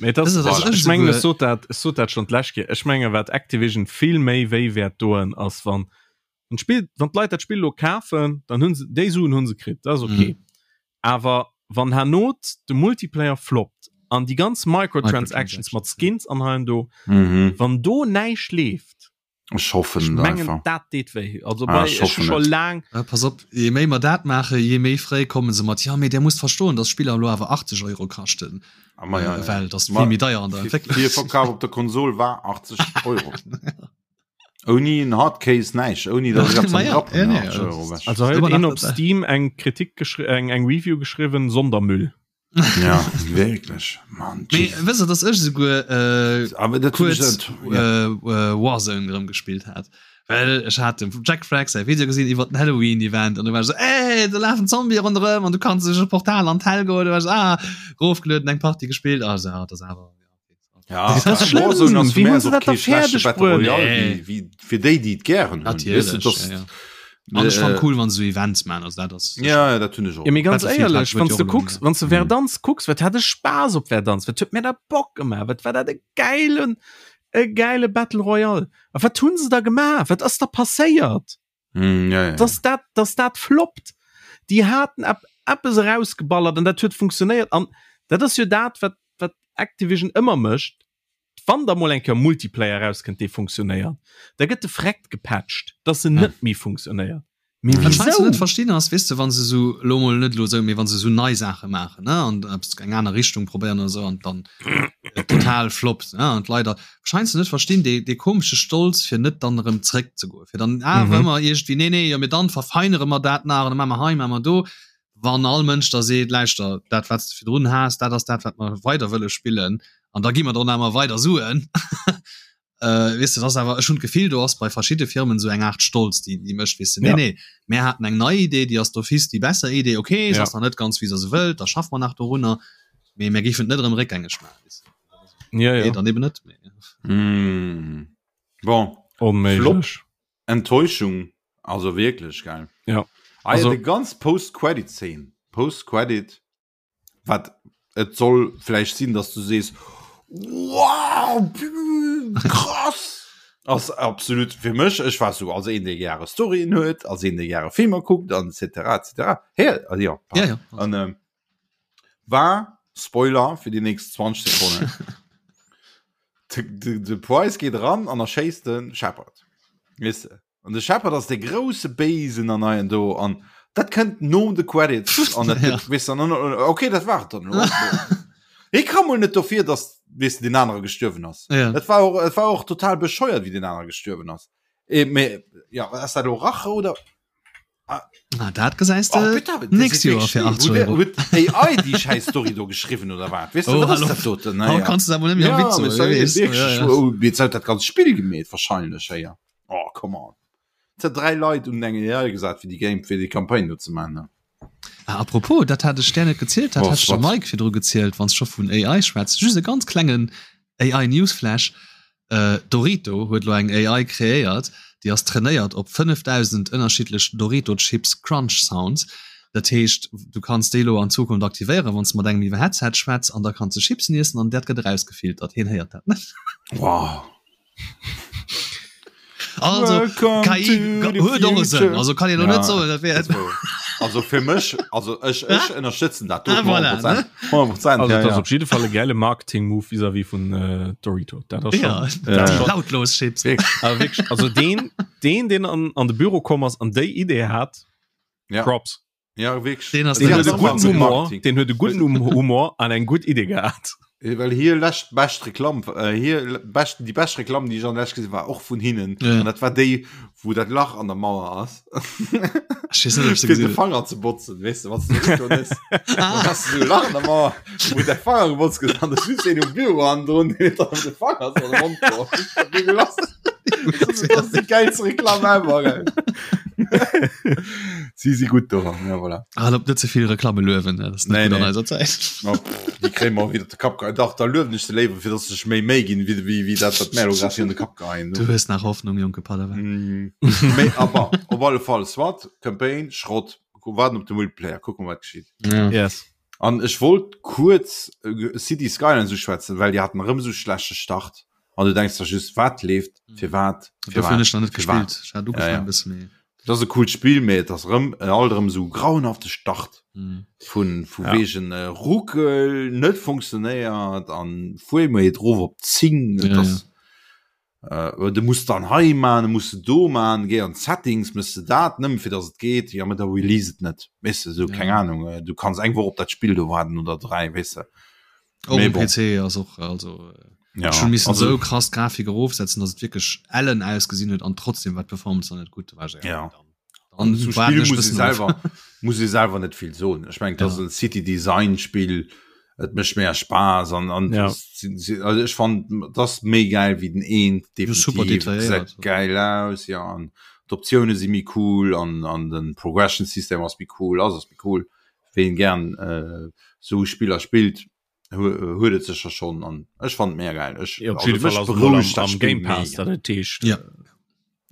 Mee das, Das ist- das voilà. ist Ech mengen souguer- ech sot dat ech sot dat schon d'lescht Kéier. Ech menge wat Activision vill méi wéi wäert doen ass wann wann d'Spill wann d'Leit dat Spill lo kafen, dann hunn se déi Suen hunn se kritt, dat ass okay. Mhm. Awer wann herno de Multiplayer floppt an déi ganz Microtransactions mat Skins an hei an do, Mhm. wann do näischt leeft, Ech hoffen ech et mengen einfach. dat deet wéi. Also Ah, bei ech ech hu hoffen scho et. laang Ja, pass op, je méi mer dat maachen, je méi fréi komme se mat, ja, mee där musst verstoen, dass Spiller elo awer 80 Euro kaschten, Ah, ma ja, äh, ja. well dat ass Ma vill méi deier an der Fir, Entwécklung. fir Verkaf op der Konsol war 80 Euro. Ouni en Hardcase näischt, ouni datt ech eppes am Ja, Grapp ja, hunn, nee, 80 Euro ewech. Also hei Immer huet een nach op dabei. Steam eng Kritik geschri eng eng Review geschriwwen, Sondermüll. Ja, wierklech, Mann, Mee Jesus. wësst der, dass ech esouguer äh, Awer dat hunn ech kuerz net, ja. äh, äh, Warzone erëm gespillt hat. Well ech hat dem Jack Frag säi Video gesinn iwwer den Halloween-Event an du war ech so, ey, do lafen Zombie ronderëm an du kanns duerch e Portal an d'Hell goen. Du war ech so, ah, rofgelueden, eng Partie gespillt. Ah, so, ja, dat ass awer, ja. Ja, Das ist schlimm. Warzone ass Wie fir hun mär se och dat da kee schlechte fäerdeg Battle bruet? Royale Nee. wéi, wéi fir déi, déi et gären hunn. Weess de, Natierlech, dass, ja, ja. An ech fand äh, cool, wann se so Events man, also dat ass ja, ja, dat hunn ech och. Ja, mee ganz Battlefield hat éierlech, huet wann jo du och kucks, elo wann du Verdansk kucks, wat hat e Spaass op Verdansk, wat huet mir dat Bock gemaach, wat war dat e geilen, e geile Battle Royale. A wat hunn se da gemaach? Wat ass da passéiert? Mm, ja, ja. Dass dat, dass dat floppt. Déi haten ep eppes erausgeballert an dat huet funktionéiert an dat ass jo dat, wat, wat Activision ëmmer mécht, wann da mol eng Kéier Multiplayer erauskënnt, dee funktionéiert, da gëtt de Freckt gepatcht, dass en Ja. net méi funktionéiert. Mee Wat ech heiansdo wisou? net verstinn ass, weess de, wann se sou, elo mol net elo sou, mee wann se sou nei Saache maachen, ne, an eppes eng aner Richtung probéieren oder sou an dann et total floppt, ne, an d'Leit da, wat ech heiansdo net verstinn, dee, dee komesche Stolz fir net dann erëm zréck ze goen, fir dann awer Mhm. ëmmer iergendwéi, nee, nee, jo, mee dann verfeinere mer dat nach an da maache mer hei, maache mer do, wann all Mënsch da seet, lauschter, dat wat s de virdrun has, dat ass dat wat mer weider wëlle spillen an da gi mer dann awer weider Suen. Äh, weess de, dat ass awer, ech hunn d'Gefill, do ass bei verschidde Firmen esou eng Aart Stolz, déi, déi mécht, weess de, nee, Ja. nee, mär haten eng nei Idee, déi ass d'office déi besser Idee, okay, se Ja. ass nach net ganz, wéi se se wëllt, da schaffe mer nach dorunner, mee mär géifen et net erëm réckgängeg maachen, weess de. Ja, Nee, ja. dann eben net. Mee. Mm. Bon, Flop. Onméiglech. Enttäuschung, also wierklech, gell? Ja. Ah, ja, Also- déi ganz Post-Credit-Szene, Post-Credit, wat et soll vläicht sinn, dass du sees, wow, krass! Ass absolut fir mech, ech war sou als een, dee gäre Storyen huet, als een, dee gäre Filmer kuckt an et cetera, et cetera. Hä? Also, ja, Ja, ja. An ähm, war, Spoiler fir déi nächst 20 Sekonnen, de, de, de Price geet eran an erschéisst de Shepard. Weess de? An de Shepard ass de grousse Béisen an hei an do an dat kënnt no de Credits an dat Ja. gëtt, weess de, an, an, okay, dat war et dann elo. Hie ka mol net dofir, dass, weess de, deen anere gestuerwen ass. Ja. Dat war och, et war och total bescheuert, wéi deen anere gestuerwen ass. Eh, mee, ja, ass dat elo Rache oder? Ah, dat gesäis Oh, de bitte, das nächst ist Joer wirklich fir schlimm. 80 Huet- Euro. huet AI déi scheiß Story do geschriwwen oder wat? Weess de, Oh, wat ass hallo. dat doten? Haut Naja. kannst du awer net méi am Ja, Witz mee soen, sorry, weess. wirklich, Ja, ja. oh, jetzt huet dat ganz Spill gemeet wahrscheinlech, hey, ja. Oh, come on. Et hat dräi Leit un eng AI gesat fir déi Game fir déi Campagne do ze man. Ne? Ah, apropos, dat hat ech der net gezielt, dat Oh, hat ech dem wat? Mike virdru gezielt, wann s scho vun AI schwätz. Just e ganz klengen AI Newsflash. Äh, Dorito huet lo eng AI kreéiert, déi ass trainéiert op 5000 ënnerschiddlech Dorito Chips Crunch Sounds. Dat heescht, du kanns déi lo an Zukunft aktivéieren, wann s de mat engem iwwer Headset schwätz an da kanns de Chipsen iessen an dat gëtt erausgefiltert. Hien héiert dat net. Wow. Also Welcome KI to the huet och e Sënn. future. Also kann een lo Ja, net soen, dat wär dat wor. Also fir mech also ech ech ënnerstëtzen dat ah, voilà, 100%, 100%, also, ja, ja. ja. op jidde Fall e geile Marketing-Move vis-à-vis vun äh, Dorito. Dat ass ja, schon, dat ja. lautlos Chips. Also, wirklich, also den, den, den an, an de Büro komm ass an déi Idee hat, ja. Props. Ja, wirklich. Den ass Den den huet e ass guten Humor, Marketing. den huet e guten Hum- Humor an eng gutt Idee gehat. Äh, Well hier läscht bescht Reklamm äh, hier bescht, die bescht Reklamm, die ich an läscht gesehen war och vun hinnen. Ja. An dat war déi, wo dat Lach an der Mauer ass. Ich weiß nicht, ob ich sie Fir de gesehen habe. Fanger ze botzen, weißt du, was du schon ist. Dann hast du so Lach an der Mauer, wo der Fanger gebotzt gëtt, an der just een um Büro an drun, deen huet dann de Fanger so an de Mond geholl. Ich hab mega gelacht. Das ist, das ist die geilste Reklamm ever, gell. Sie si gut do, ja, voilà. Ah, op net zevill Reklamme luewen, ne? Das ist net Nee, gut an nee. eiser Zäit. No, pff, die kréie mer wieder de Kapp geheien. Dach, da luewen ech se léiwer, fir dass se sech méi Méi ginn, wéi, wéi, wéi dat, wat mär elo grad hier an de Kapp geheien. Du hues nach Hoffnung, jonke Padawan. Mm. Méi, aber op alle Fall, SWAT, Campaign, Schrott. Warten op de Multiplayer, kucken, wat geschitt. Ja. Yes. An ech wollt kuerz äh, City Skylines uschwätzen, well déi haten erëm sou schlechte Start. An du denkst der just, wat leeft, fir wat, fir Dofir hunn wat, ech nach net fir wat. gespillt. Ech hat ugefaangen Ja, ja. e bësse méi. Dat ass e coolt Spill, mee et ass erëm äh, alt erëm sou grauenhafte Start. Mm. Vun vu Ja. wegen äh, Ruckel net funktionéiert an Framerate rof op 10. Et Ja, ass, äh, du musst dann hei man, du musst do man, geh an Settings, misst du dat nëmmen fir dass et geet, ja, mee da release et net. Weess de, sou, Ja. keng Ahnung, äh, du kanns eng Woch op dat Spill do waarden oder 3, weess de. Och Mee um bon. PC ass och also äh, Ja, schon missen also, sou krass d'Grafik erofsetzen, dass et wierklech ellen ausgesinn huet an trotzdem war d'Performance dann net gutt. Da war ech, Ja. Dann, dann zum waarden Spiel ech muss ich bëssen of. selber muss ich selber net vill soen. Ech meng, das Ja. ass en City Design Spiel, et mécht mehr Spaß an an Ja. si- si- also ech fand das méi geil wie den eent Ja, super definitiv detailléiert. gesäit geil aus ja an d'Optioune si méi cool an an den Progression System ass méi cool ass ass méi cool ween gern äh, sou Spiller spillt huet et sécher schonn an ech fand mega geil ech Ja, op also jidde Fall mech ass et mol am, berouegt dat am Spill Game Pass, mega. dat et heescht. Ja.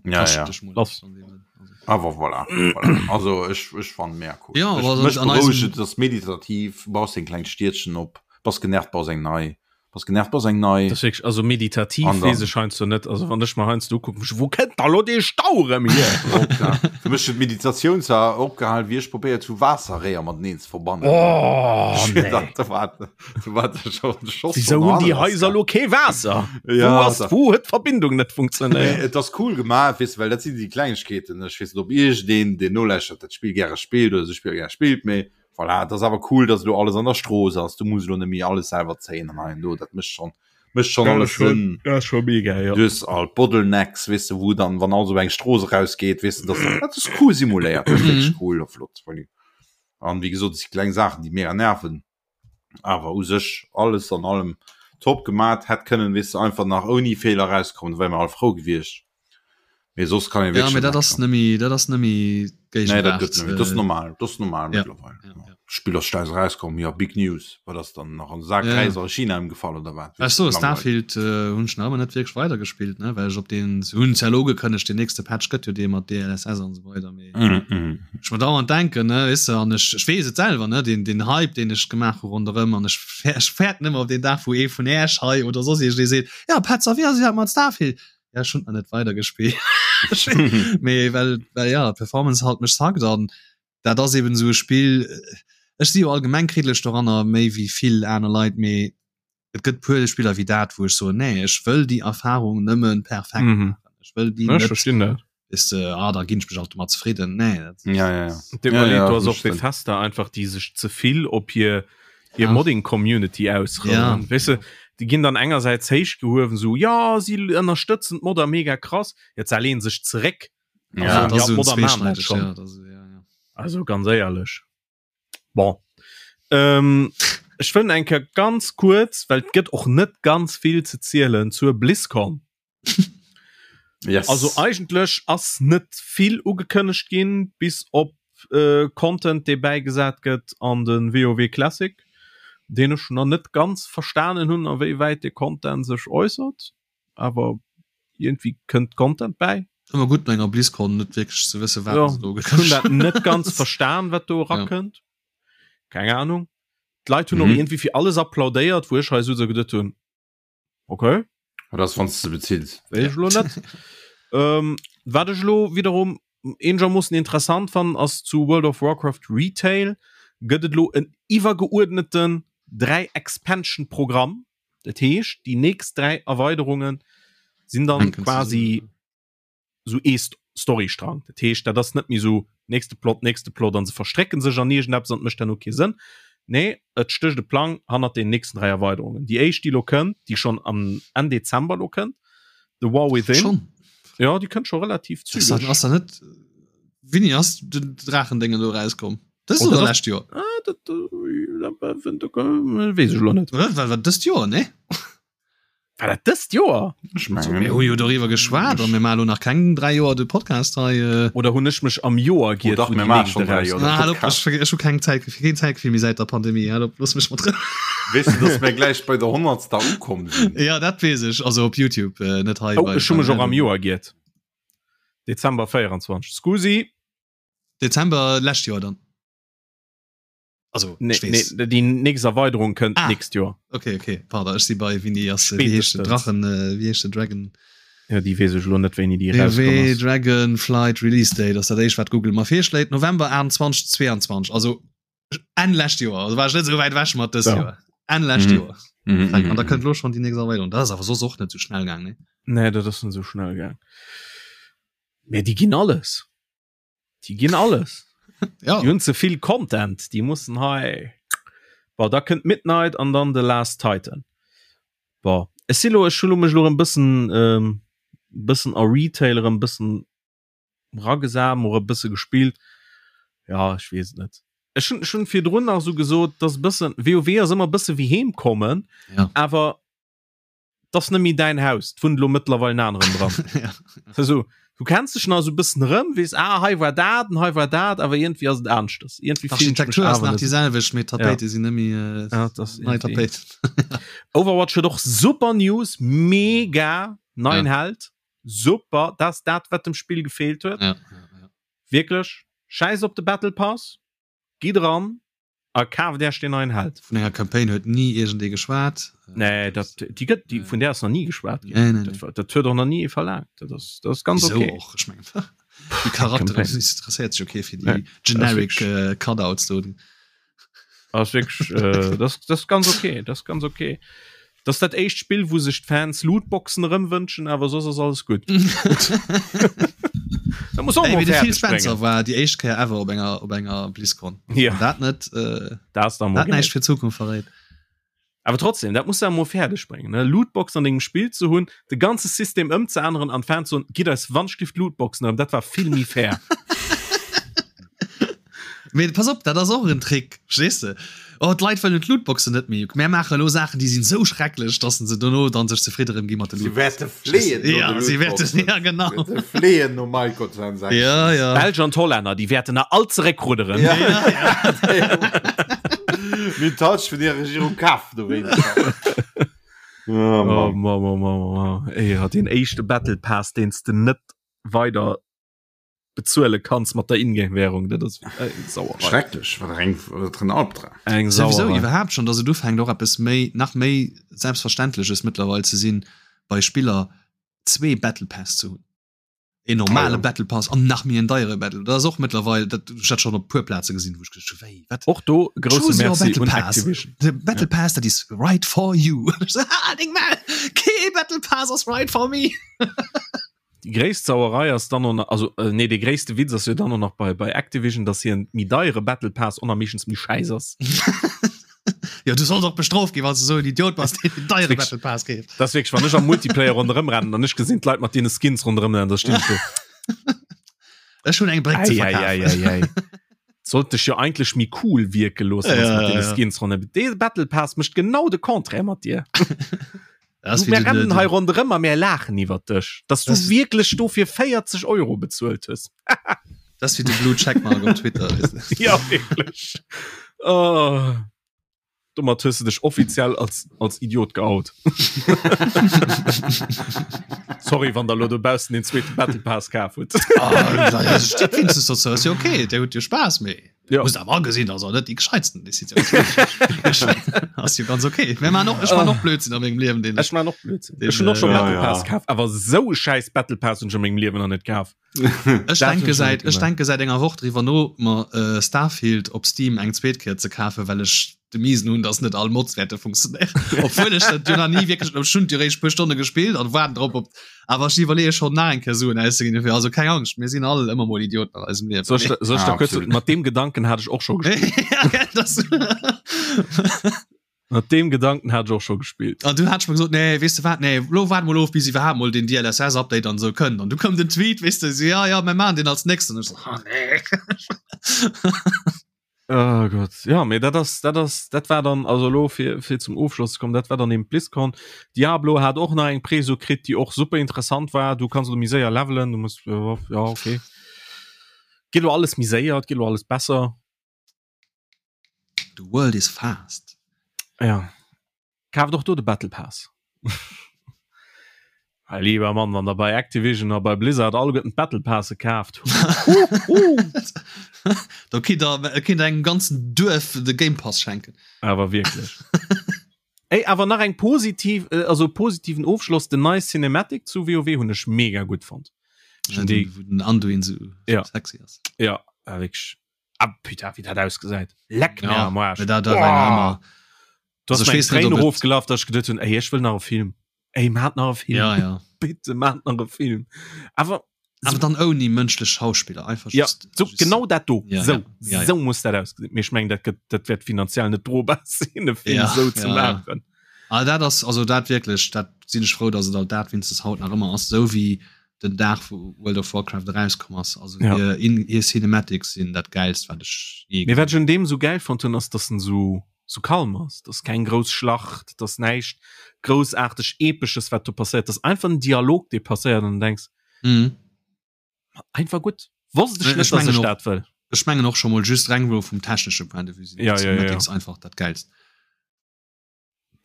Ja, Kascht ja. dech mol Lass. an dem Sënn, also. Awer voilà, voilà. Also ech, ech fand mega cool. Ja, ech, aber mech an berouegt eisem et, ass meditativ, baus deng kleng Stiedchen op, bass genervt, baus eng nei, bass genervt, baus eng nei. Das ist wirklich, also meditativ An dann- wees ech heiansdo net. Also wann ech mer heiansdo ukucken, wo kënnt da lo dee Stau erëm hier? Oh, klar. Fir mech huet d'Meditatioun zwar opgehal, wéi ech probéiert hu Waasserréier mateneen ze verbannen. Oh, nee. Da war, da war der schon de Schoss Wieso von hunn déi der Haiser lo kee Waasser? Ja, Wo ass, da- wo huet d'Verbindung net funktionéiert? Et ass cool gemaach, weess de, well dat sinn déi Klengegkeeten. Ech weess net, ob iergendeen, deen nolauschtert, dat Spill gäre spillt oder esou Spiller gäre spillt, mee voilà, et ass awer cool, dass elo alles an der Strooss ass. Du muss elo net méi alles selwer zéien an hei an do. Dat mécht schonn, mécht schonn alles Sënn. Dat ass scho mega, jo. Du hues all d'Bottlenecks, weess de, wou dann, wann alles op eng Strooss erausgeet, weess de, dass dat ass cool simuléiert. Dat ass wierklech cool a flott. An wéi gesot, et si kleng Saachen, déi mega nerven. Awer u sech alles an allem top gemat, hätt kënnen weess de einfach nach ouni Feeler rauskommen, da wäre mer all frou gewiescht. Mee soss kann een Ja, wierklech mee net dat ass meckeren. nëmme dat ass nëmme Nee, dat Géigewaart. gëtt nëmme, dat ass normal, dat ass normal Ja, mëttlerweil. ja, ja. D'Spill ass schleis erauskomm, jo, big news. Wat ass dann nach an de Sak Ja. Räis a China ëmgefall oder wat? Ech so, Langweilig. Starfield äh, hunn ech nach ëmmer net wierklech weidergespillt, ne? well ech op den se hunn ja lo ugekënnegt, den nächste Patch gëtt jo dee mat DLSS an esou weider, mee Mhm, mhm. ech mer dauernd denken, ne, weess de, an ech, ech weess et selwer, ne, den, den Hype, deen ech gemaach hu ronderëm, an ech, ech fäerten ëmmer op deen Dag, wou ee vun Äech hei oder soss iergendee seet, ja, Petz, a wéi ass et iwwerhaapt mat Starfield? Ja, ech hunn nach net weidergespillt. Mee well, well ja, d'Performance halt mech zackt an dat ass eben esou e Spill, ech si jo allgemeng kriddlech doranner, méi wéi vill aner Leit, mee et gëtt puer Spiller wéi dat, wou ech soen, nee, ech wëll déi Erfahrung nëmmen perfekt Mhm. maachen. Ech wëll déi Ja, ech net, verstinn dat. weess de, ah, da ginn ech mech alt domat zefridden. Nee, dat, Ja, ja, ja. De Ja, ja, do ass das och stimmt. Bethesda einfach déi sech ze vill op hir hir Ja. Modding Community ausrouen. Ja. Weess de, déi ginn dann engersäits héich gehuewen, sou ja si ënnerstëtzen d'Modder mega krass, jetzt se lehnen sech zeréck. Ja, Also, dat ass ja, esou d'Modder maachen dat zweeschneideg, schon. ja, dat ass, ja, ja. Also ganz éierlech. Bon. Ähm, ech wëll eng Kéier ganz kuerz, well et gëtt och net ganz vill ze zielen zur BlizzCon. Yes. Also eigentlech ass net vill ugekënnegt ginn, bis op äh, Content, dee bäigesat gëtt an de WoW Classic, deen ech nach net ganz verstanen hunn, a wéi wäit de Content sech äussert. Awer irgendwie kënnt Content bäi. Ëmmer gutt no enger BlizzCon net wierklech ze wësse wat Ja, se do ech hunn dat net ganz verstan, wat do erakënnt. Keng Ahnung. D'Leit hunn och Mhm. irgendwie fir alles applaudéiert, wou ech hei sou geduet hunn, okay. Oder ass wann s de bezills. Weess ech lo net. ähm, wat ech lo wiederum. eenegermoossen interessant fannen ass zu World of Warcraft Retail gëtt et lo en iwwergeuerdneten 3 Expansion Programm. Dat heescht déi nächst 3 Erweiderungen sinn dann quasi sou ee Storystrang. Dat heescht dat ass net méi sou nächste Plot, nächste Plot an se verstrécken sech an iergendeppes an et mécht herno kee Sënn. Nee, et stécht e Plang hannert den nächsten 3 Erweiderungen. Déi éischt déi lo kënnt, déi schonn am Enn Dezember lo kënnt, The War Within. Schon? Ja, déi kënnt scho relativ zügeg. Ass da net Wéini ass den Draachendéngen do erauskomm? Dëst oh, oder lescht Joer? Ah, dat, äh, weess ech lo net. War dat dëst Joer, nee? War dat dëst Joer? Ech mengen. Mir hu jo doriwwer geschwat an mir maachen elo nach keng 3 Joer de Podcast hei. Äh. Oder hunn ech mech am Joer giert? Oh, dach, mir maachen schon 3 Joer de Podcast. Ah, ech, ech hu keng Zäit, keen Zäitgefill méi säit der Pandemie. Hal op, looss mech mat Rou. Weess du, dass mir gläich bei der honnertster ukomm sinn? Ja, dat weess ech. Also op YouTube, äh, net hei. Oh, ech hu mech och am Joer giert. Dezember 24. Scusi. Dezember lescht Joer dann. Also nee, nee, déi nächst Erweiderung kënnt ah. nächst Joer. Okay, okay. Pardon, ech si bei wéini ass wéi heescht den Drachen äh, wéi heescht den Dragon? Ja, déi weess ech lo net wéini déi rauskomm ass. Dragon Flight Release Date ass dat éischt wat Google mer virschléit November 28 22 also Enn lescht Joer also war ech net sou wäit ewech mat dëst ja. Joer Enn lescht mhm. Joer mhm. mhm. An da kënnt lo schon déi nächst Erweiderung dat ass awer soss och net sou schnell gaang ne? Nee dat ass net sou schnell gaang. Mä déi ginn alles. Déi ginn alles. ja. Déi hunn ze vill Content, déi mussen hei. Bon, da kënnt Midnight an dann The Last Titan. Bon, ech si lo, ech hu lo mech lo e bëssen ähm, bëssen a Retail erëm bëssen ragesam oder e bësse gespillt. Ja, ech weess et net. Ech hunn ech hunn virdrun nach esou gesot, dass e bëssen WoW ass ëmmer e bësse wéi heem kommen, ja. awer das net méi däin Haus, et wunnt elo mëttlerweil en aneren dran. ja. Also, du kenns dech nach esou e bëssen erëm, weess, ah, hei war dat an hei war dat, awer iergendwéi ass et aneschtes. Iergendwéi fillen ech mech D'Architektur ass awer nach net. déi selwecht, mee d'Tapéite sinn net méi äh, Ja, dat ass nei iergendwéi. Tapéiten. Overwatch huet och super News, mega neien Ja. Held, super, dat ass dat, wat dem Spill gefeelt huet. Ja, ja, ja. Wierklech, schäiss op de Battle Pass, gitt eran a kaaft Iech deen neien Held. Vun enger Campaign huet ni iergendee geschwat. Nee, dat, déi gëtt, déi, vun där ass nach ni geschwat ginn. Nee, nee, Dat nee. war, dat huet och nach ni ee verlaangt. Dat ass, dat ass ganz Wieso okay. och? Ech mengen, déi Charakteren Campaign. interesséiert sech okay fir déi Nee, generic das äh, Cutouts do. Ass wierklech, äh, das, das ist ganz okay, das ist ganz okay. Das ist dat éischt Spill, wou sech d'Fans Lootboxen erëm wënschen, awer soss ass alles gutt. Da muss och Ey, mol wéi de Phil fäerdeg Spencer bréngen. war déi éischt Kéier ever op enger op enger BlizzCon. Ja. Wann Dat net äh, Dat ass da mol dat näischt geil. fir d'Zukunft verréit. Awer trotzdem, dat muss du emol fäerdeg bréngen, ne? Lootbox an dengem Spill ze hunn, de ganze System ëmzeänneren an d'Fans soen, gitt eis wannschlift Lootboxen erëm, dat war vill méi fair. Mee pass op, dat ass och en Trick, verstees de? Oh, d'Leit wëllen d'Lootboxen net méi. Mär maache elo Saachen, déi sinn esou schrecklech, dass se dono dann sech zefridde erëm gi mat de Si Lootboxen. wäerte fleeën no Ja, de si wäerten, Lootboxen. ja genau. Si wäerte fleeën no Microtransactions. Ja, ja. D'Belsch an d'Hollänner, déi wäerten nach all zeréckrudderen. Ja. Mir touch vun der Regierung kaf dowéinst. Oh, Oh, Mann. Mann, Mann, Mann, Mann. Ey, ja, den éischte Battle Pass, deen s de net weider bezuele kanns mat der Ingame-Währung, dat ass eng Sauerei. Schrecklech, wat eng wat en Albdram. Eng Souwisou Sauerei. iwwerhaapt schon, dass et ufänkt och eppes méi nach méi Selbstverständleches mëttlerweil ze sinn, bei Spiller zwee Battle Päss ze hunn. Een normale Ah, ja. Battle Pass an nach méi en deiere Battle. Dat ass och mëttlerweil, dat ech dat schon op puer Plaze gesinn, wou ech geduecht hu, wéi, wat? Och do grousse Choose your Merci Battle un Pass. Activision. The Battle Pass that is right for you. Ah, deng Maul! Kee Battle Pass ass right for me! Déi gréisst Sauerei ass dann och nach, also äh, nee, dee gréisste Witz ass jo dann och nach bei, bei Activision, dass hien méi deiere Battle Pass och nach meeschtens méi schäiss ass. Ja, du solls och bestrooft ginn, wann du sou en Idiot bass, deen den deiere Wirklich. Battle Pass keeft. Das ist wirklich, wann ech am Multiplayer ronderëm rennen an ech gesinn d'Leit mat deene Skins ronderëm rennen, da stinn ech do. Ech hunn eng Bréck ze Ei, ei, verkafen. ei, ei, ei. Sollt dech jo eigentlech méi cool wierke loossen, Ja, als mat ja, deene ja. Skins ronderëm. Dee Battle Pass mécht genau de Contraire mat dir. Das Du, wie mir den, rennen den, hei ronderëm a mir laachen iwwer dech, dass du Das- wierklech dofir 40 Euro bezuelt hues. das wie de Blue Checkmark op Twitter. Weißt du? Ja, wierklech. Oh. Domat hues du dech offiziell als, als Idiot geout. Sorry, wann der lo dobaussen den zweeten Battle Pass kaf hutt. Ah, ja, steet wenigstens dazu, ist ja okay, der huet jo Spaß méi. Ja. Muss awer agesinn, dass er net déi gescheitsten Decisioun Ass jo ganz okay. Mir man och, ech man och Blödsinn a mengem Liewen, den Ech man och Blödsinn. Den, Ech hunn och schon äh, Battle ja, Pass ja. kaf, awer sou e schäiss Battle Pass hunn ech a mengem Liewen nach net kaf. Ech denke säit ech denke säit enger Woch driwwer no mer äh, Starfield op Steam eng zweet Kéier ze kafen, well ech de Miesen hunn, dass net all Mods wäerte funktionéieren. Obwuel ech dat jo nach ni wierklech ech hunn jo réischt puer Stonne gespillt an waarden drop op awer ech iwwerleeë schonn nach eng Kéier Suen auszeginn dofir. Also keng Angscht, mir sinn all ëmmer mol Idioten an eisem Liewen. Soll ech, soll ech ah, da kurz, mat deem Gedanken hat ech och scho gespillt. ja, gell, das Mat deem Gedanken hat ech och scho gespillt. An du hat ech mer gesot, nee, weess de wat, nee, lo waarde mol of, bis iwwerhaapt mol den DLSS-Update an esou kënnt. An du koum den Tweet, weess de, so, ja, ja, mir maachen deen als nächsten. An ech so, ah, nee. Oh Gott ja mee dat ass dat ass dat war dann also lo fir fir zum Ofschloss ze kommen dat war dann eben BlizzCon. Diablo hat och nach eng Preso kritt déi och super interessant war du kanns lo méi séier levelen du muss ja okay geet lo alles méi séier et geet lo alles besser. The world is fast. Ja Kaaft och do de Battle Pass. Hei lieber Mann, wann der bei Activision a bei Blizzard alleguerten d'Battle Passe kaaft. Do kinnt der kinnt der engem ganzen Duerf de Game Pass schenken. Awer wierklech. Ey, awer nach eng positiv, äh, also positiven Ofschloss, den neie Cinematic zu WoW hunn ech mega gutt fonnt. Ja, den, wou den Anduin sou ja. sexy ass. Ja, wierklech. Ah, putain, wéi dat ausgesäit. Leck mir ja, am Arsch. Dat, dat war immer. Du hast mir Tränen rofgelaf, dass ich gedacht hun, ey, ich will nach e Film. Ey, maat nach e Film. Ja, ja. Bitte maat nach e Film. Aber aber dann ouni mënschlech Schauspiller einfach ja, just, so, just, genau dat do ja, so, ja, ja, so muss dat ausgesinn. Mee ech meng dat gëtt dat wäert finanziell net drobar sinn e Film ja, sou ze ja, maachen. Ja. Ah, dat ass also dat wierklech dat sinn ech frou, datt et alt dat winstens haut nach ëmmer ass, sou wéi den Dag wou World of Warcraft erauskomm ass. Also ja. hir, in, hir Cinematics sinn dat geilst wat ech je Mee wat ech un deem sou geil fonnt hunn ass, datt en sou sou kalm ass, dass keng grouss Schlacht, dass näischt groussaarteg Epesches wat do passéiert, dass einfach en Dialog dee passéiert an du denks mhm. einfach gutt. Wosst ech net, dass ech dat wëll. Ech mengen och scho mol just reng wou vum technesche Point de vue sinn ja, ja, ja, ja. einfach dat geilst.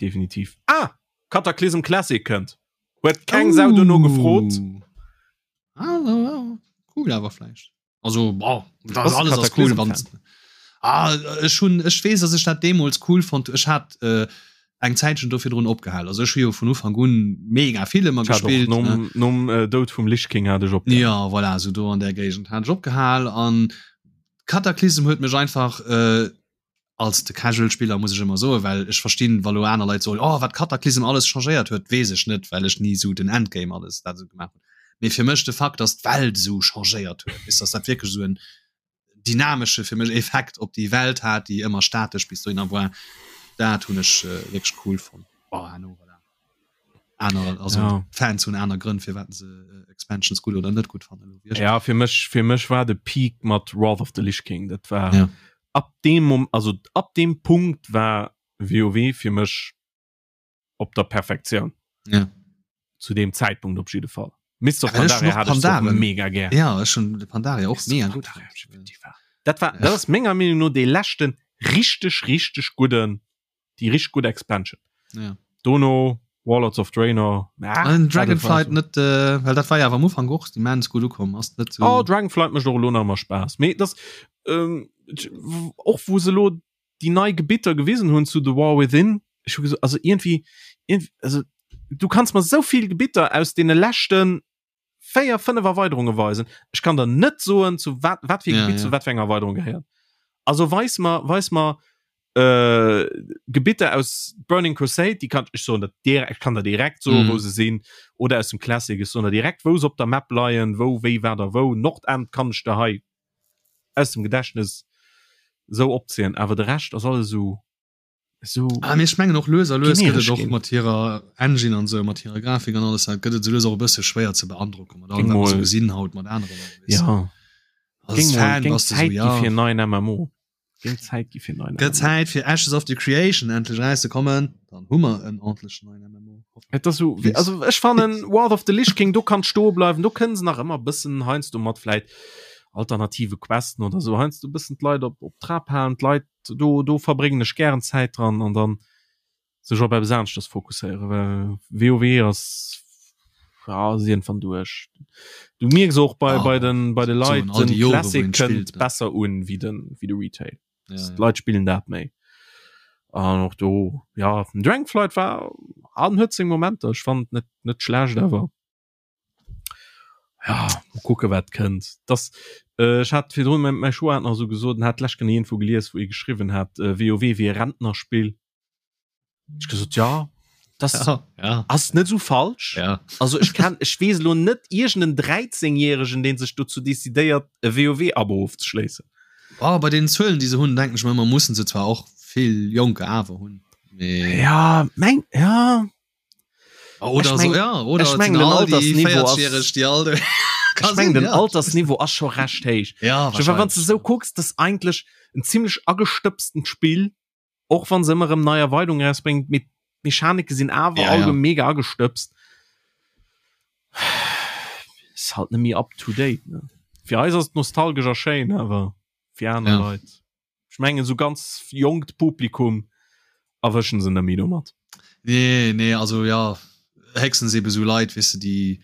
Definitiv. Ah! Cataclysm Classic kënnt. Huet keng Sau dono gefrot. Ah, cool awer vläicht. Also boah, das alles ass cool wann ah, ech hunn ech weess, dass ech dat deemools cool fonnt. Ech hat äh, eng Zäitchen do virdrun opgehal. Also ech hu jo vun Ufank un mega vill ëmmer gespillt. Nom, nom äh, Doud vum Lich King hat ech opgehal. Ja, voilà, so do an der Géigend hat ech opgehal an Cataclysm huet mech einfach äh, als de Casual Spiller muss ech ëmmer soen, well ech verstinn wa lo aner Leit soen, oh wat Cataclysm alles changéiert huet, weess ech net, well ech ni sou den Endgame alles dat esou gemaach hunn. Mee fir mech de Fakt, datt d'Welt esou changéiert huet, weess, datt dat wierklech esou en dynamesche fir mech Effekt op déi Welt hat, déi ëmmer statesch bis dohinner war, dat hunn ech wierklech cool fonnt. Bon, herno voilà. Aner also ja. Fans hunn aner Grënn firwat se äh, Expansions gutt oder net gutt fannen. Ja fir mech fir mech war de Peak mat Wrath of the Lich King dat war ja. ab dem Mom also ab dem Punkt war WoW fir mech op der Perfektioun. Ja. Zu dem Zeitpunkt op jidde Fall. Mist of Ja, well ech Pandaria noch hat ech och Pandaren. mega gär. Ja ech hun de Pandaria och Mist of mega gutt Pandaria, fonnt. Dat war dat ass menger Meenung no dee leschten richteg richteg gudden déi richteg gutt Expansion. Ja. Dono Warlords of Draenor. Ah, An Dragonflight net äh, well dat war ja am Ufang och immens gut ukomm ass net so oh, Dragonflight mecht och lo nach immer Spaß. Mee das ähm, och wo se lo die nei Gebitter gewisen hunn zu The War Within ich hu also irgendwie, irgendwie also du kannst mer so viel Gebitter aus den leschten 4 5 Erweiterunge weisen ech kann der net soen zu wat wat fir ja, Gebitt ja. zu wat fir enger Erweiterung gehéiert also weis mer weis mer äh, Gebitter aus Burning Crusade die kann ech soen dat direkt kann der direkt so mm. wou se sinn oder aus dem Classic ech soen der direkt wou se op der Map leien wou wéi wat a wou Nordend kann ech der hei aus dem Gedächtnis sou opzielen awer de Rescht ass alles sou So ah, mee ech mengen och lues a lues gëtt et och mat hirer Engine an sou mat hirer Grafik an alles dat gëtt et sou lues och e bësse schwéier ze beandrocken mat allem wat mer sou gesinn haut mat aneren ja als Fan bass du sou ja fir neien MMO Géing Zäit gi fir neien Gëtt Zäit fir Ashes of the Creation endlech erauszekommen dann hu mer en ordentlechen neien MMO Et ass sou also ech fannen Wrath of the Lich King do kann stoe bleiwen do kënnen se nach ëmmer bëssen heiansdo mat vläit alternative Questen oder sou heiansdo bëssen d'Leit op op Trab halen d'Leit do do verbréngen ech gären Zäit dran an dann sech op eppes aneschters fokusséieren, well WoW ass ja ass iergendwann duerch. Du mierks och bei bei den bei de Leit all den déi Jore, wou Classic een kënnt spillt, ne? besser un wéi den wéi de Retail. Ja, ja. D'Leit spillen dat méi. An och do ja den Dragonflight war an huet seng Momenter, ech fannen et net net schlecht awer ja. kucke wat kënnt. Das äh, ech hat virdrun mäi mäi Schwoer hat nach esou gesot, en hat d'lescht Kéier iergendwou gelies, wou ee geschriwwen hat, äh, WoW wier e Rentnerspill. Ech gesot ja, das Ja, ja, ass net esou falsch. ja. Also ech kann ech weess elo net iergenden 13 Järegen, deen sech dozou decidéiert e WoW-Abo ofzeschléissen. Oh, bei den Zuelen, déi se hunn, denken ech mer ëmmer, mussen se zwar och vill Jonker awer hunn. Mee Ja, meng ja. Oder Ech so, meng- ja, oder ech et meng, sinn den all déi Altersniveau ass- 40-Jähreg, déi all Ech meng den Altersniveau ass scho recht héich. Ja, Ech wann du sou kucks, das ass eigentlech en zimmlech agestëbstent Spill, och wann se ëmmer erëm nei Erweidungen erausbréngt, mee d'Mechanike sinn awer Ja, all ja. mega agestëbst. Ist halt net méi up to date ne. Fir eis ass et nostalgesch a schéin, awer fir aner Ja. Leit. Ech mengen sou ganz jonkt Publikum erwëschen se net méi domat. Nee, nee, also ja, héchstens ebe sou Leit, weess de, déi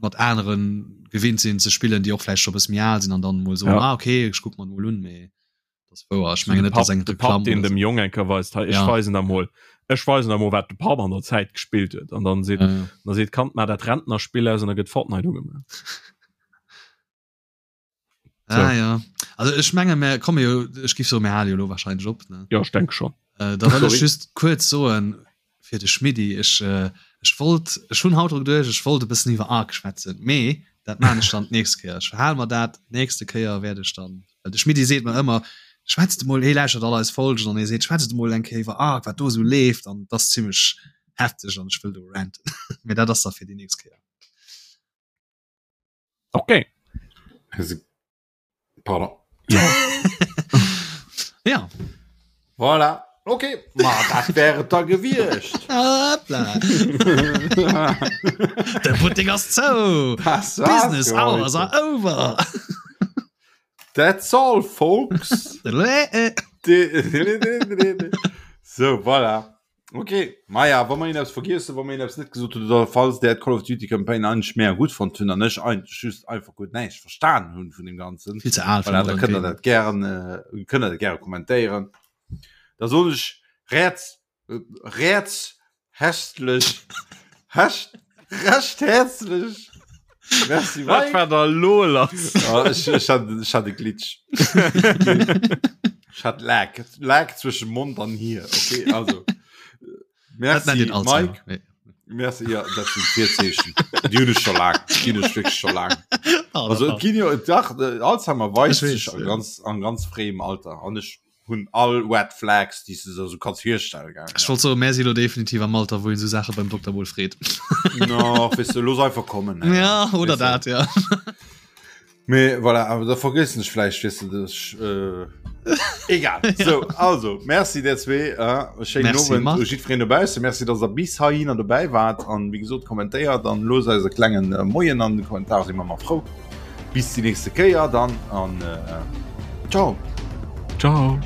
mat aneren gewinnt sinn ze spillen, déi och vläicht scho bësse méi al sinn an dann emol soen, Ja. ah okay, ech kuck mer emol un, mee dat ass wouer. Ech mengen De net, dass Papp, eng de Papp Reklamm deen oder dem Jong eng Kéier weist, hei ech Ja. weisen der mol, ech weisen der mol wat de Papp an der Zäit gespillt huet an dann seet, Ja, ja. dann seet d'Kand, maach dat Rentnerspill aus an da gëtt Fortnite ugemaach. Ah, So. ja. Also ech menge mir komme jo ech gif so mir hale jo lo wahrscheinlech op ne Ja, ech denke schon. Äh, da wëll ech Sorry. just kuerz soen fir de Schmiddi ech äh, ech wollt ech hunn haut dru geduecht ech wollt e bëssen iwwer Ark schwätzen mee dat maan ech dann d'nächst Kéier ech verhale mer dat d'nächste Kéier wäert ech dann well de Schmiddi seet mer ëmmer schwätzt emol hee lauschtert all eis Folgen an hee seet schwätzt emol eng Kéier iwwer Ark wat do esou leeft an dat ass zimmlech hefteg an ech wëll do ranten mee dat ass da fir déi nächst Kéier. Okay. Pardon. Ja. ja. Voilà. Okay, ma dat wär et da gewiescht. Hoppla. De Buttek ass zou. Das war's Business für hours heute. are over. That's all, folks. So, voilà. Ok, maja, wa mer eppes vergiess hunn, wa mer eppes net gesot hunn oder falls där d'Call of Duty Campaign eigentlech mega gutt fonnt hunn an ech eigentlech just einfach guer näischt verstan hunn vun deem Ganzen, Vill ze al fir voilà, da modern kënnt der Gaming. dat gären, kënnt der dat gäre kommentéieren. Da soen ech räerz, räerz hästlech, hecht, recht häerzlech Merci Wat Mike. war da lo lass? Ah, ech, ech hat, ech hat e Glitch. Ech hat Lag. Lag zwëschen Mond an Hier. Okay, also. Dat nennt Merci een Alzheimer. Mike. Nee. Merci, ja, dat sinn Virzeechen. Déi hunn ech scho laang. Déi hunn ech wierklech scho laang. Ah, Also et ginn jo, dach, äh, Alzheimer weist Ech weess, sech a ja. ganz, an ganz fréiem Alter. An ech hunn all Red Flags, déi s de der sou kanns virstellen, gaangen. Ech wollt soen, mär si lo definitiv am Alter, wou een esou Saache beim Dokter mol freet. No, weess de, looss einfach kommen. Hè. Ja, oder Weess de. dat, ja. Mee voilà, awer da vergiessen ech vläicht, weess de, dass ech, äh, egal. So, also, merci der zwee, äh, schéinen Merci, Owend Marc. u jiddwereen dobaussen. Merci, dass der bis heihinner dobäi waart an wéi gesot, kommentéiert an loosst eis e klengen äh, Moien an de Kommentar, si mer ëmmer frou. Bis déi nächste Kéier dann an äh, ciao. Ciao.